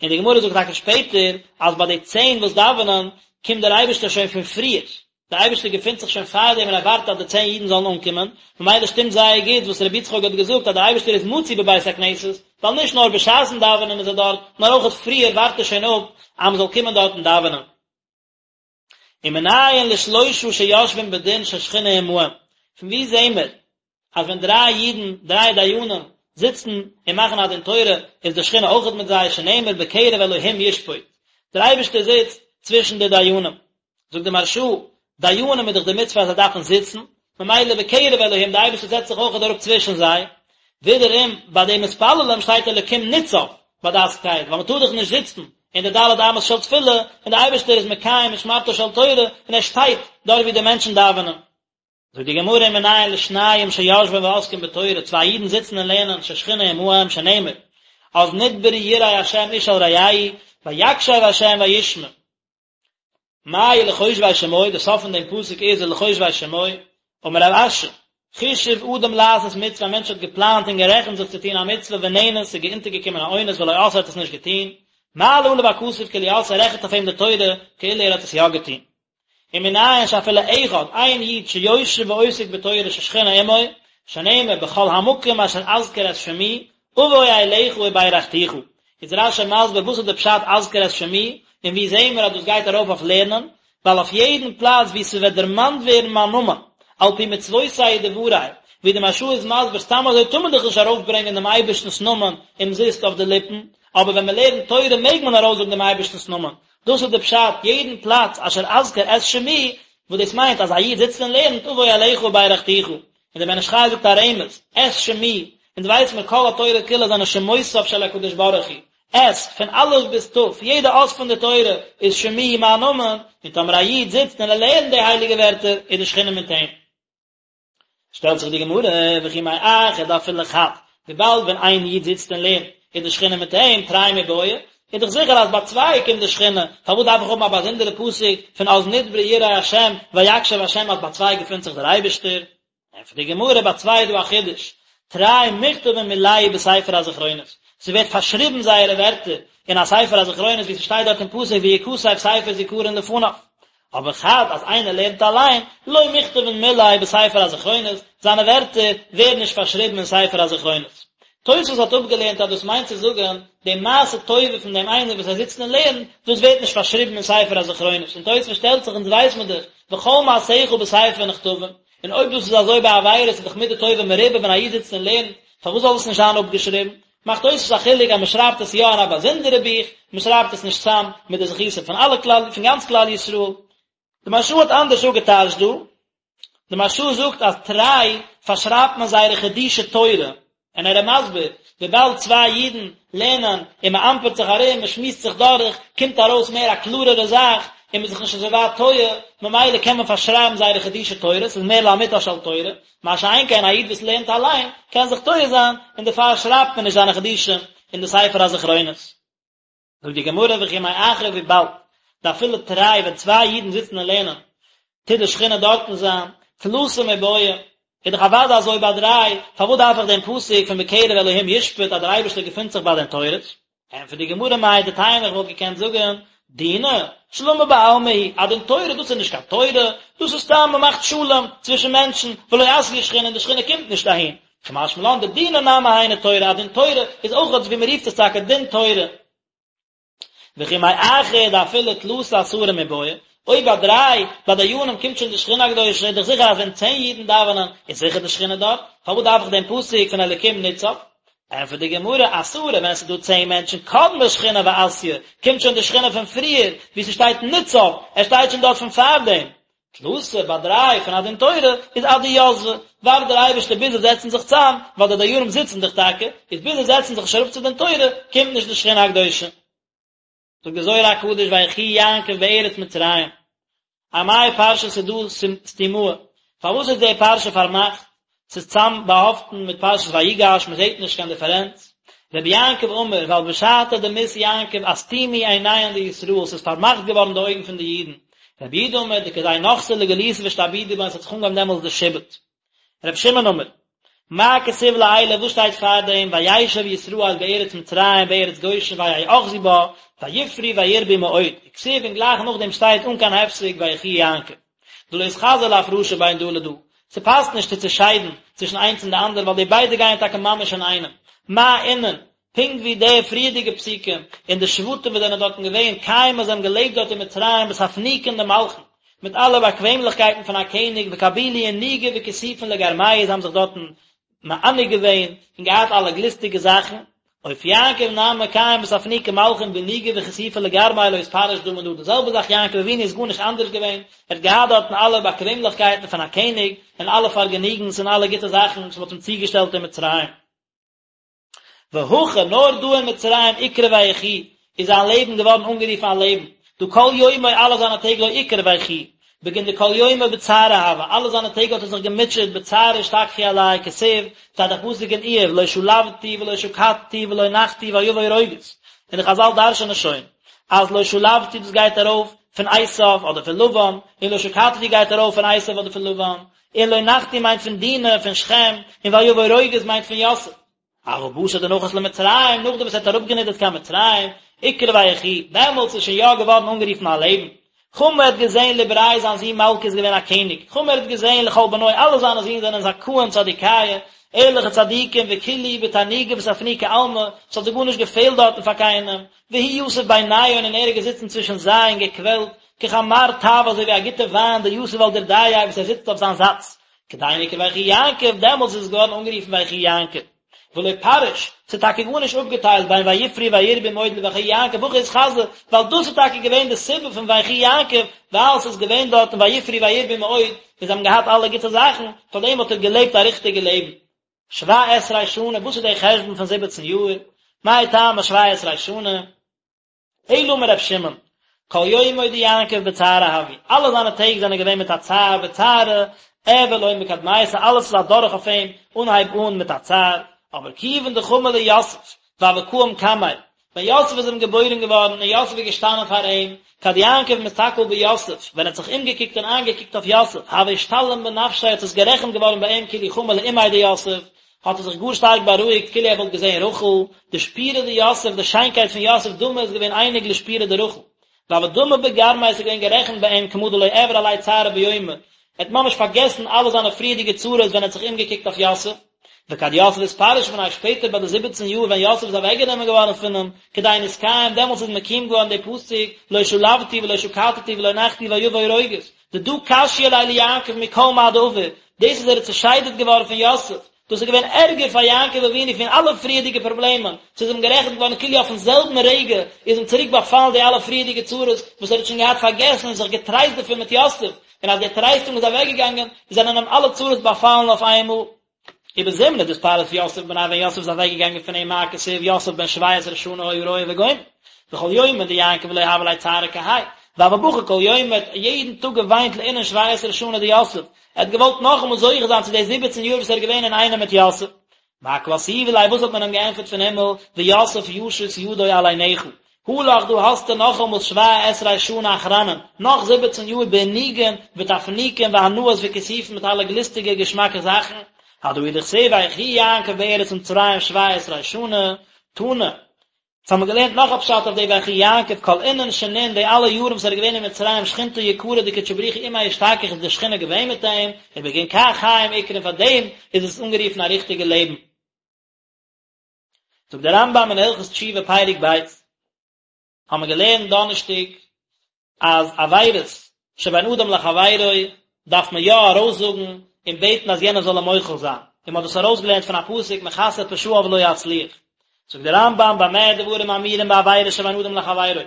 און די גמרא זאגט טאקע שפעטער אז ביי די צען וואס דאווענען קומט דער אייבערשטער שוין פון פריער, דער אייבערשטער געפינט זיך שוין פארדעם און ער ווארט אז די צען אידן זאלן אנקומען, ממילא שטימט זייער גוט וואס רבי יצחק האט געזאגט אז דער אייבערשטער איז מצוי בבית הכנסת, ווייל נישט נאר בשעת'ן דאווענען איז ער דארט, נאר אויכעט פריער ווארט ער שוין אפ אז מען זאל קומען דארטן דאווענען. ומנין לשלושה שיושבין בדין ששכינה עמהם, פון וואו זעהן מיר אז ווען דריי אידן, דריי דיינים, זיצן און מאכן א דין תורה איז די שכינה אויכעט מיט זיי, שנאמר בקרב אלהים ישפוט, דער אייבערשטער זיצט צווישן די דיינים. זאגט די מהרש"א, דיינים איז דאך די מצוה אז זיי דארפן זיצן, ממילא בקרב אלהים, די אייבערשטער זעצט זיך אויכעט אראפ צווישן זיי, ווידעראום ביי די מתפללים שטייט אלוקים ניצב בעדת קל, ווייל מען טאר דאך נישט זיצן אין די ד' אמות של תפילה, און די אייבערשטער איז מקיים משמרתה של תורה, און ער שטייט דארט ווי די מענטשן דאווענען. זאגט די גמרא ומנין לשניים שיושבין ועוסקין בתורה, צוויי אידן זיצן און לערנען ששכינה עמהם שנאמר, אז נדברו יראי השם איש אל רעהו, ויקשב השם וישמע. מאי ולחושבי שמו, די סוף פון דעם פסוק איז ולחושבי שמו, אמר רב אשי, חישב אדם לעשות מצוה, א מענטש האט געפלאנט און גערעכנט זיך צו טון א מצוה ונאנס, ס'איז אונטערגעקומען א אונס ולא עשאה האט עס נישט געטון, מעלה עליו הכתוב כאילו עשאה רעכנט אויף אים די תורה כאילו ער האט עס יא געטון. ומנין שאפילו אחד, איין איד שיושב ועוסק בתורה ששכינה עמו, שנאמר בכל המקום אשר אזכיר את שמי, אבוא אליך וברכתיך. איז רש"י מסביר וואס איז די פשט אזכיר את שמי, און ווי זעהן מיר אז דאס גייט ארויף אויף לערנען, ווייל אויף יעדן פלאץ וואו ס'וועט דערמאנט ווערן מיין נאמען, על פי מצוותי ודברי, ווי די מהרש"א איז מסביר סתם אזוי טאר מען דאך נישט ארויפברענגען דעם אייבערשטנ'ס נאמען אומזיסט אויף די ליפן, אבער ווען מ'לערנט תורה מעג מען ארויסזאגן דעם אייבערשטנ'ס נאמען, דאס איז די פשט, יעדן פלאץ אשר אזכיר את שמי, וואס דאס מיינט אז א איד זיצט און לערנט אבוא אליך וברכתיך, און דער בן איש חי זאגט א רמז, את שמי, אונז ווייס מיר כל התורה כולה זענען שמותיו של הקדוש ברוך הוא, את, פון א' ביז ת', יעדע אות פון די תורה איז שמי מיין נאמען, און טאמער א איד זיצט און ער לערנט די הייליגע ווערטער, איז די שכינה מיט אים. שטעלט זיך די גמרא, וכי מאחר דאפילו חד, וויבאלד ווען איין איד זיצט און לערנט, איז די שכינה מיט אים, תרי מיבעיא, איז דאך זיכער אז ביי צוויי קומט די שכינה, פארוואס דארף איך האבן א באזונדערע פסוק פון אז נדברו יראי השם ויקשב השם אז ביי צוויי געפינט זיך דער אייבערשטער? ענטפערט די גמרא, ביי צוויי איז דא א חידוש, תרי מכתבין מילייהו בספר הזכרונות, ס'ווערט פארשריבן זייערע ווערטער אין א ספר הזכרונות ווי ס'שטייט דארט אין פסוק ויכתב ספר זכרון לפניו, אבער חד אז איינער לערנט אליין, לא מכתבין מיליה בספר הזכרונות, זיינע ווערטער ווערן נישט פארשריבן אין ספר הזכרונות. תוספות האט אפגעלערנט אז דאס מיינט צו זאגן, די מעשה טובה פון דעם איינער וואס ער זיצט און לערנט, דאס ווערט נישט פארשריבן אין ספר הזכרונות, און תוספות שטעלט זיך אונז ווייס מען דאך, וכל מעשיך בספר נכתבים, און אויב דאס איז אזוי ביי עבירות איז דאך מידה טובה מרובה ווען א איד זיצט און לערנט, פארוואס זאל עס נישט זיין אפגעשריבן? מאכט תוספות א חילוק אז מען שרייבט עס יא אין א באזונדערע בוך, מען שרייבט עס נישט צאם מיט די זכותים פון אלע כלל פון גאנץ כלל ישראל. די מהרש"א האט אנדערש אפגעטייטשט דא, די מהרש"א זאגט אז תרי פארשרייבט מען זייערע חידושי תורה, און ער איז מסביר, וויבאלד צוויי אידן לערנען און מען אמפערט זיך ארום, מען שמועסט זיך דורך, קומט ארויס מער א קלארערע זאך, און מען איז זיך נישט אזוי ווייט טועה, ממילא קען מען פארשרייבן זייערע חידושי תורה, ס'איז מער לאמיתה של תורה, מה שאין כן א איד וואס לערנט אליין קען זיך טועה זיין, און דערפאר שרייבט מען נישט זיינע חידושים אין די ספר הזכרונות. זאגט די גמרא וכי מאחר וויבאלד דאפילו תרי ווען צוויי אידן זיצן און לערנען טוט די שכינה דארטן זיין, תלתא מיבעיא, איז דאך אוודאי אזוי ביי דריי, פארוואס דארף איך דעם פסוק פון בקרב אלהים ישפוט אז דער אייבערשטער געפינט זיך ביי דין תורות? ענטפערט די גמרא מהו דתימא איך וואלט געקענט זאגן, דינא, שלמא בעלמא הוא, א דין תורה דאס איז נישט קיין תורה, דאס איז סתם מען מאכט שלום צווישן מענטשן, ולא אתיא שכינה און די שכינה קומט נישט אהין, קא משמע לן דדינא נמי היינו תורה, א דין תורה איז אויך אזוי ווי מען רופט עס טאקע דין תורה. וכי מאחר דאפילו תלתא עשרה מיבעיא, אויב ביי דריי ביי דיינים קומט שוין די שכינה הקדושה איז דאך זיכער אז ווען צען אידן דאווענען איז זיכער די שכינה דארט, פארוואס דארף איך דעם פסוק פון אלוקים ניצב? ענטפערט די גמרא, עשרה, ווען ס'איז דא צען מענטשן, קדמה שכינה ואתיא, קומט שוין די שכינה פון פריער, ווי ס'שטייט ניצב, ער שטייט שוין דארט פון פארדעם. תלתא, ביי דריי פון א דין תורה, איז עד דיתבי, ווארט דער אייבערשטער ביז זיי זעצן זיך צאם, ווייל די דיינים זיצן דאך טאקע, איז ביז זיי זעצן זיך נישט אראפ צו דין תורה, קומט נישט די שכינה הקדושה. זאגט דער זוהר הקדוש ויחי יעקב בארץ מצרים, אמאי פרשתא דא סתימאה, פארוואס איז די פרשה פארמאכט, ס'איז צאם באהאפטן מיט פרשת ויגש, מען זעט נישט קיין דיפערענץ, רבי יעקב אמר, ווייל בשעתא דמית יעקב אסתימו עיניהון דישראל, ס'איז פארמאכט געווארן די אויגן פון די אידן, רבי יהודה אמר, דכדין נחתו לגלותא ואשתעבידו בהון, ס'האט זיך אנגעהויבן דעמאלטס די שעבוד. רבי שמעון אמר, מה כתיב לעילא וואס שטייט פאר דעם וישב ישראל בארץ מצרים בארץ גושן ויאחזו בה ויפרו וירבו מאוד, וכתיב און גלייך נאכדעם שטייט אן קיין הפסק ויחי יעקב. דלא אתחזי לאפרשא בין דא לדא, ס'פאסט נישט צו צעשיידן צווישן איינס און די אנדערע ווייל די ביידע גייען טאקע ממש אינאיינעם. מה אינון, פונקט ווי די פריערדיגע פסוקים און די שבטים וואס זענען דארטן געווען קיימי זיי האבן געלעבט דארט אין מצרים בתפנוקין דמלכין, מיט אלע באקוועמליכקייטן פון א קעניג וקבילו ענוגא וכיסופין לגרמייהו זיי האבן זיך דארטן מענג געווען און געהאט אלע גליסטיגע זאכן, אוף יעקב נמי קיים בתפנוקי מלכין בענוגא וכיסופא לגרמיה לא אתפרש דא מן דא, די זעלבע זאך יעקב אבינו איז גארנישט אנדערש געווען, ער האט געהאט דארטן אלע באקוועמליכקייטן פון א קעניג און אלע פארגעניגנס און אלע גוטע זאכן וואס מען האט אים צוגעשטעלט אין מצרים. והכא, נאר דא אין מצרים אקרי ויחי, איז זיין לעבן געווארן אנגערופן א לעבן, דהא כל יומוי אלע זיינע טעג לא אקרי ויחי, בגין דכל יומוי בצערא הוה, אלע זיינע טעג האט ער זיך געמוטשעט בצערא אשתכחו עליה, כתיב, שטייט א פסוק אין איוב, לא שלוותי ולא שקטתי ולא נחתי ויבא רוגז, און די חזל דרש'נען שוין, אז לא שלוותי דאס גייט ארויף פון עשיו אדער פון לבן, און לא שקטתי גייט ארויף פון עשיו אדער פון לבן, און לא נחתי מיינט פון דינה, פון שכם, און ויבא רוגז מיינט פון יוסף. אבל בתר דנחת למצרים, נאכדעם וואס ער האט אראפגענידערט קיין מצרים, אקרי ויחי, דעמאלטס איז שוין יא געווארן אנגערופן א לעבן. חמא האט געזען לבריה זיין זון מלכא איז געווען א קעניג, חמא האט געזען לכל בנוי אלע זיינע זין זענען זכאין צדיקיא, ערליכע צדיקים, וכלהו בתענוגי ותפנוקי עלמא, ס'האט זיי גארנישט געפעלט דארטן פאר קיינעם, והוא יתיב ביניהון און ער איז געזיצן צווישן זיי און געקוועלט, כחמר טב אזוי ווי א גוטע וויין דיתיב על דורדיא וואס ער זיצט אויף זיין זאץ. כדין אקרי ויחי יעקב, דעמאלטס איז עס געווארן אנגערופן ויחי יעקב. ולא פריש, ס'איז טאקע גארנישט אפגעטיילט בין ויפרו וירבו מאוד לויחי יעקב הכי אתחזי, ווייל דאס איז טאקע געווען די סיבה פון ויחי יעקב, ווייל ס'איז געווען דארטן ויפרו וירבו מאוד, און זיי האבן געהאט אלע גוטע זאכן, פארדעם האט ער געלעבט א ריכטיגע לעבן. שבע עשרה שנה, וואס איז דער חשבון פון זיבעצן יאר? מאי טעמא שבע עשרה שנה? אלא אמר ר' שמעון, כל יומוי דיעקב בצערא הוו, אלע זיינע טעג זענען געווען מיט א צער, בצערא אעבר לא מקדמיתא, אלעס איז אדורך אויף אים, אנהייב אן מיט א צער, אבער כיוון דחמא ליוסף, והוה קאים קמיה, ווען יוסף איז אים געבוירן געווארן און יוסף איז געשטאנען פאר אים, כד יעקב מסתכל ביוסף, ווען ער האט זיך אומגעקוקט און איינגעקוקט אויף יוסף, הוה אשתלים בנפשיה האט עס גערעכנט געווארן ביי אים כאילו חמא לאימיה דיוסף, האט ער זיך גאר שטארק בארואיגט כאילו ער וואלט געזען רחל, דשפירא דיוסף, די שיינקייט פון יוסף דמי איז געווען אייניג לשפירא דרחל. והוה דמי בגרמיה עס איז געווען גערעכנט ביי אים כמה דלא אעבר עליה צערא ביומא, ער האט ממש פארגעסן אלע זיינע פריערדיגע צרות ווען ער האט זיך אומגעקוקט אויף יוסף. וכד יוסף אתפרש מניה שפעטער ביי די זיבעצן יאר ווען יוסף איז אוועקגענומען געווארן פון אים, כדין אתקיים דעמאלטס איז מקוים געווארן די פסוק לא שלוותי ולא שקטתי ולא נחתי ויבא רוגז, דדא קשיא ליה ליעקב מכל מה דעבר, דאס אז ער איז צעשיידעט געווארן פון יוסף, דאס איז געווען ערגער פאר יעקב אבינו פון אלע פריערדיגע פראבלעמען, ס'איז אים גערעכנט געווארן כאילו אויפן זעלבן רגע איז אים צוריק באפאלן די אלע פריערדיגע צרות וואס ער האט שוין געהאט פארגעסן און זיך געטרייסט דערפון מיט יוסף, און אז די טרייסטונג איז אוועקגעגאנגען, זענען אים אלע צרות באפאלן אויף איינמאל. ובזמנא דאתפרש יוסף מניה ווען יוסף איז אוועקגעגאנגען פון אים מה כתיב יוסף בן שבע עשרה שנה היה רועה וגומר וכל יומין דיעקב לא הוה ליה צערא כי האי והוה בכי כל יומא האט יעדן טאג געוויינט לאינון שבע עשרה שנה דיוסף ער האט געוואלט נאכאמאל זוכה זיין צו די זיבעצן יאר וואס ער איז געווען אינאיינעם מיט יוסף מה קא אתיבו ליה וואס האט מען אים געענטפערט פון הימל ויוסף ישית ידו על עיניך הא לך דא האסטו נאכאמאל שבע עשרה שנה אחרנין, נאך זיבעצן יאר בענוגין ותפנוקין והנאות וכיסופין מיט אלע גליסטיגע געשמאקע זאכן, הדא הוא דכתיב ויחי יעקב בארץ מצרים שבע עשרה שנה, תנא. יעצט האבן מיר געלערנט נאך א פשט אויף די ויחי יעקב כל אינון שנין די אלע יארן וואס ער איז געווען אין מצרים שכינתא יקרא דקודשא בריך הוא עמיה אשתכח איז די שכינה געווען מיט אים, ובגין כך חיים אקרון פאר דעם איז עס אנגערופן א ריכטיגע לעבן. זאגט דער רמב"ם אין הלכות תשובה פרק ב', האבן מיר געלערנט דאנערשטאג אז עבירות שבין אדם לחבירו דארף מען יא ארויסזאגן און בעטן אז יענער זאל אים מוחל זיין. און מען האט דאס ארויסגעלערנט פון א פסוק מכסה פשעיו לא יצליח. זאגט דער רמב"ם במה דברים אמורים בעבירה שבין אדם לחבירו,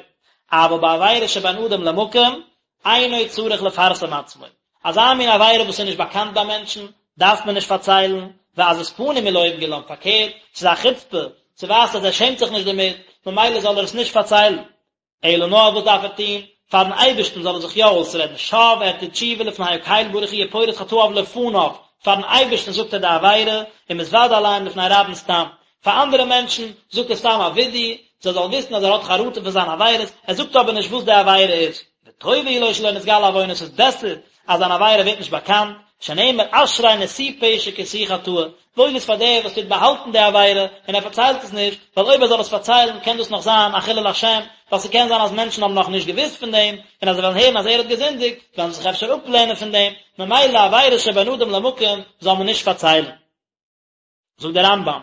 אבל בעבירה שבין אדם למקום, אינו צריך לפרסם עצמו. אזא מין עבירה וואס איז נישט באקאנט ביי מענטשן, דארף מען נישט פארציילן, ועזות פנים היא לו אם גילם, פארקערט, ס'איז א חוצפה, ס'ווייזט אז ער שעמט זיך נישט דערמיט, ממילא זאל ער עס נישט פארציילן. אלא נאר וואס דארף ער טון? פארן אייבערשטן זאל ער זיך יא אויסרעדן, שב ער טוט תשובה לפני הקל ברוך הוא ופורס חטאיו לפניו, פארן אייבערשטן זאגט ער די עבירה, ומתוודה עליהם לפני רבים סתם, פאר אנדערע מענטשן זאגט ער סתם א וידוי, זיי זאלן וויסן אז ער האט חרטה פון זיינע עבירות, ער זאגט אבער נישט וואס די עבירה איז. וטובה היא לו שלא נתגלה עוונו, ס'איז בעסער אז זיין עבירה ווערט נישט באקאנט, שנאמר אשרי נשוי פשע כסוי חטאה, וואויל איז פאר דער וואס טוט באהאלטן די עבירה און ער פארציילט עס נישט, ווייל אויב ער זאל עס פארציילן קען דאס נאך זיין א חילול השם, ווייל ס'קען זיין אז מענטשן האבן נאך נישט געוואוסט פון דעם, און אז זיי וועלן הערן אז ער האט געזינדיגט, וועלן זיי זיך אפשר אפלערנען פון דעם, ממילא עבירות שבין אדם למקום זאל מען נישט פארציילן. זאגט דער רמב"ם.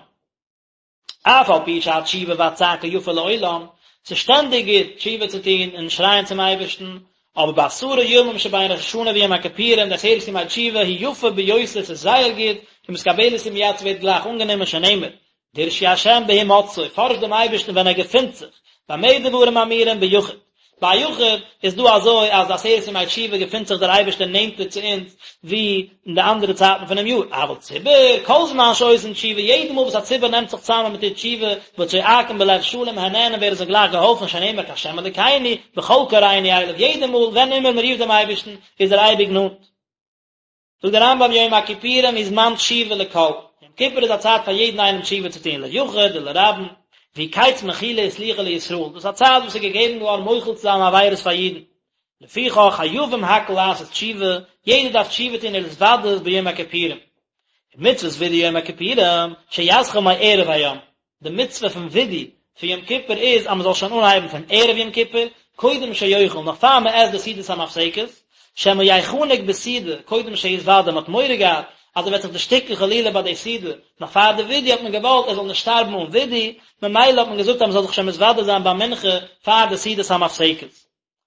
אף על פי שהתשובה והצעקה יפה לעולם, ס'איז שטענדיג גוט תשובה צו טון און שרייען צום אייבערשטן, אבער בעשרה ימים שבין ראש השנה ויום הכיפורים די עשרת ימי תשובה היא יפה ביותר ס'איז זייער גוט, ומתקבלת היא מיד ס'ווערט גלייך אנגענומען שנאמר, דרשו השם בהמצאו, פארשט דעם אייבערשטן ווען ער געפינט זיך, במה דברים אמורים ביחיד. ביי א יחיד איז דא אזוי אז די עשרת ימי תשובה געפינט זיך דער אייבערשטער נענטער צו אונז ווי אין די אנדערע צייטן פונעם יאר, אבל ציבור, כל זמן שעושים תשובה, יעדע מאל וואס א ציבור נעמט זיך צוזאמען און מ'טוט תשובה, וצועקים בלב שלם הם נענין ווערן זיי גלייך געהאלפן שנאמר כהשם אלוקינו בכל קראנו אליו, יעדע מאל ווען אימער מען רופט דעם אייבערשטן איז ער אייביג נאנט. זאגט דער רמב"ם יום הכיפורים איז זמן תשובה לכל, יום כיפור איז א צייט פאר יעדן איינעם תשובה צו טון, ליחיד ולרבים, והוא קץ מחילה וסליחה לישראל, דאס איז א צייט וואס איז געגעבן געווארן מוחל צו זיין עבירות פאר אידן, לפיכך חייבים הכל לעשות תשובה, יעדער דארף תשובה טון ולהתוודות ביום הכיפורים. ומצוות וידוי יום הכיפורים, שיתחיל מערב היום, די מצוה פון וידוי פון יום כיפור איז אז מען זאל שוין אנהייבן פון ערב יום כיפור, קודם שיאכל, נאך פאר מען עסט די סעודת המפסקת, שמא יחנק בסעודה קודם שיתוודה, מען האט מורא געהאט אז ער וועט זיך דערשטיקן חלילה ביי די סעודה, נאך פאר די וידוי האט מען געוואלט ער זאל נישט שטארבן אן וידוי, ממילא האט מען געזאגט אז מען זאל זיך שוין מתוודה זיין ביי מנחה פאר די סעודת המפסקת.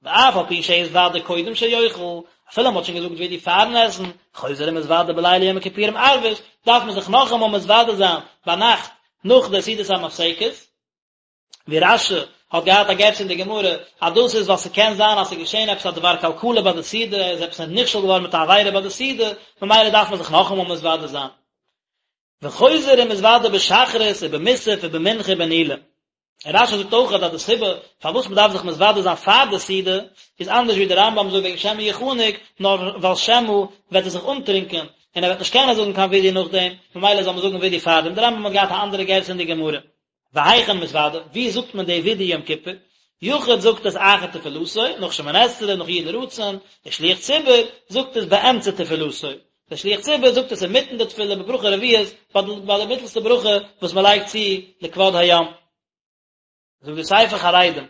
ואף על פי שהתוודה קודם שיאכל, אפילו מען האט שוין געזאגט וידוי פארן עסן, חוזר ומתוודה בלילי יום הכיפורים ערבית, דארף מען זיך נאכאמאל מתוודה זיין ביינאכט נאך די סעודת המפסקת, ווי רש"י האט געהאט א גירסא אין די גמרא, אז דאס איז ווייל ס'קען זיין אז ס'איז געשען עפעס א דבר קלקלה ביי די סעודה, ער איז עפעס נכשל געווארן מיט א עבירה ביי די סעודה, ממילא דארף מען זיך נאכאמאל מתוודה זיין. וחוזר ומתוודה בשחרית ובמוסף ובמנחה ובנעילה. און רש"י זאגט אויך אז די סיבה פארוואס מען דארף זיך מתוודה זיין פאר די סעודה איז אנדערש ווי די רמב"ם זאגט וועגן שמא יחנק, נאר ווייל שמא וועט ער זיך אנטרינקען און ער וועט נישט קענען זאגן קיין וידוי נאכדעם, ממילא זאל מען זאגן וידוי פארדעם, די רמב"ם האט געהאט א אנדערע גירסא אין די גמרא. והיכן מתוודה, ווי זאגט מען די וידוי יום כיפור? יחיד זאגט עס אחר תפילתו, נאך שמונה עשרה, נאך יהיו לרצון, דער שליח ציבור זאגט עס באמצע תפילתו, דער שליח ציבור זאגט עס אינמיטן די תפילה בברכה רביעית, ביי די מיטלסטע ברכה וואס מען לייגט צו לכבוד היום. זאגט דער ספר חרדים,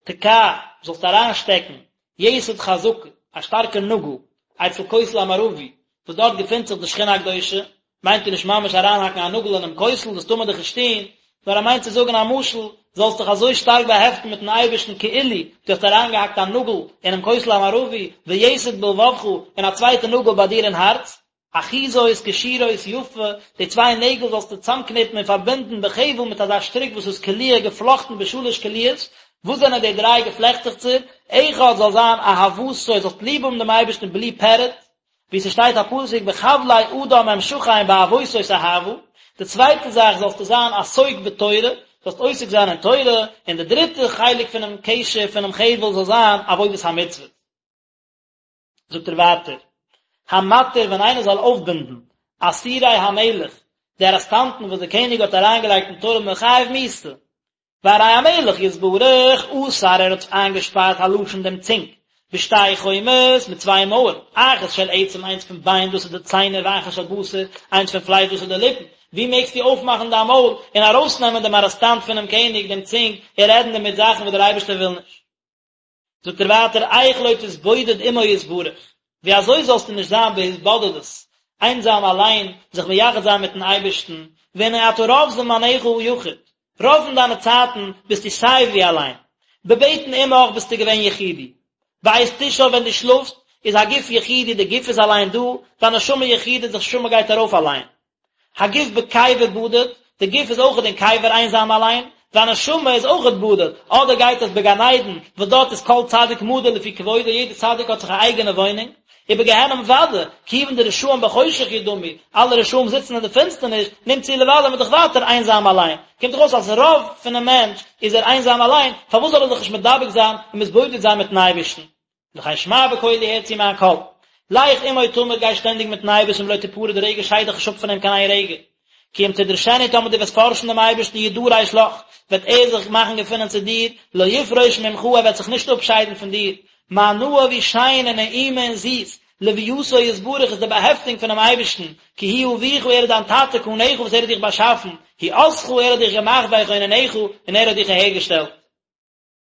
תקע, זאלסט אריינשטעקן, יתד חזקה, א שטארקע נאגל, אצל כותל המערבי, וואס דארט געפינט זיך די שכינה הקדושה, מיינט ער נישט ממש אריינהאקן א נאגל אינעם כותל, דאס טאר מען דאך נישט טון, נאר ער מיינט צו זאגן א משל, זאלסט דיך אזוי שטארק באהעפטן מיטן אייבערשטן כאילו דו האסט אריינגעהאקט א נאגל אינעם כותל המערבי, ויתד בלבבך, און א צווייטע נאגל ביי דיר אין הארץ. אחוזות קשורות יפה, די צוויי נעגל זאלסטו צאמקניפן און פארבינדן בחבל מיט אזא שטריק וואס איז קלוע געפלאכטן בשלש קליעות, וואס זענען די דריי געפלעכטעכצער? אחד זאל זיין אהבתו, זאלסט ליב האבן דעם אייבערשטן בלי פירוד, ווי ס'שטייט א פסוק בחבלי אדם אמשכם בעבותות אהבה, די צווייטע זאך זאלסטו זיין עסוק בתורה, זאלסט עוסק זיין אין תורה, און די דריטע חלק פונעם קשר פונעם חבל זאל זיין עבודת המצוות. זאגט ער ווייטער, המתיר ווען איינער זאל אויפבינדן אסירי המלך, די ארעסטאנטן וואס דער קעניג האט אריינגעלייגט אין טורמע חייב מיתה, והרי המלך יתברך אסר ער האט איינגעשפארט הלשון דעם צונג בשתי חומות מיט צוויי מויערן, אחת של עצם איינס פון ביין דאס איז די ציינער ואחת של בשר איינס פון פלייש דאס איז די ליפן, ווי מעגסטו אויפמאכן דיין מויל און ארויסנעמען דעם ארעסטאנט פונעם קעניג דעם צונג און רעדן דערמיט זאכן וואס דער אייבערשטער וויל נישט? זאגט ער ווייטער איך לא תתבודד עמו יתברך, ווי אזוי זאלסטו נישט זיין בהתבודדות, איינזאם אליין, זיך מייחד זיין מיטן אייבערשטן, והנה אתה רוב זמניך יחיד, רוב פון דיינע צייטן ביסטו סיי ווי אליין, בבטן אמך ביסטו געווען יחידי, בעת תישן ווען דו שלאפסט, איז הגוף יחידי, די גוף איז אליין דא, והנשמה יחידה, די נשמה גייט ארויף אליין. הגוף בקבר בדד, די גוף איז אויכעט אין קבר איינזאם אליין, והנשמה איז אויכעט בדד, אדער גייט עס בגן עדן, וואס דארט איז כל צדיק מדור לפי כבודו, יעדער צדיק האט זיך א אייגענע וואוינונג, ובגיהנום ודאי, כיוון דרשעים בחושך ידמו, אלע רשעים זיצן אין די פינסטערניש, נמצא לבדו מ'איז דאך ווייטער איינזאם אליין, קומט דאך אויס אז רוב פונעם מענטש איז ער איינזאם אליין, פארוואס זאל ער זיך נישט מדבק זיין און מתבודד זיין מיטן אייבערשטן? לכן שמע בקולי הער צו מיין קול. לך עמו תמיד גיי שטענדיג מיטן אייבערשטן ולא תפרד רגע שייד דיך נישט אפ פון אים קיין איין רגע. כי אם תדרשנו טאמער דו וועסט פארשן דעם אייבערשטן ידרש לך, וועט ער זיך מאכן געפונען צו דיר, לא יפרוש ממך ער וועט זיך נישט אפשיידן פון דיר. מה נאה ווי שיין ונעימה און זיס, לוויתו יתברך איז די באהעפטונג פונעם אייבערשטן, כי הוא אביך ער איז דיין טאטע קנך וואס ער האט דיך באשאפן, הוא עשך ער האט דיך געמאכט ויכוננך און ער האט דיך אהערגעשטעלט.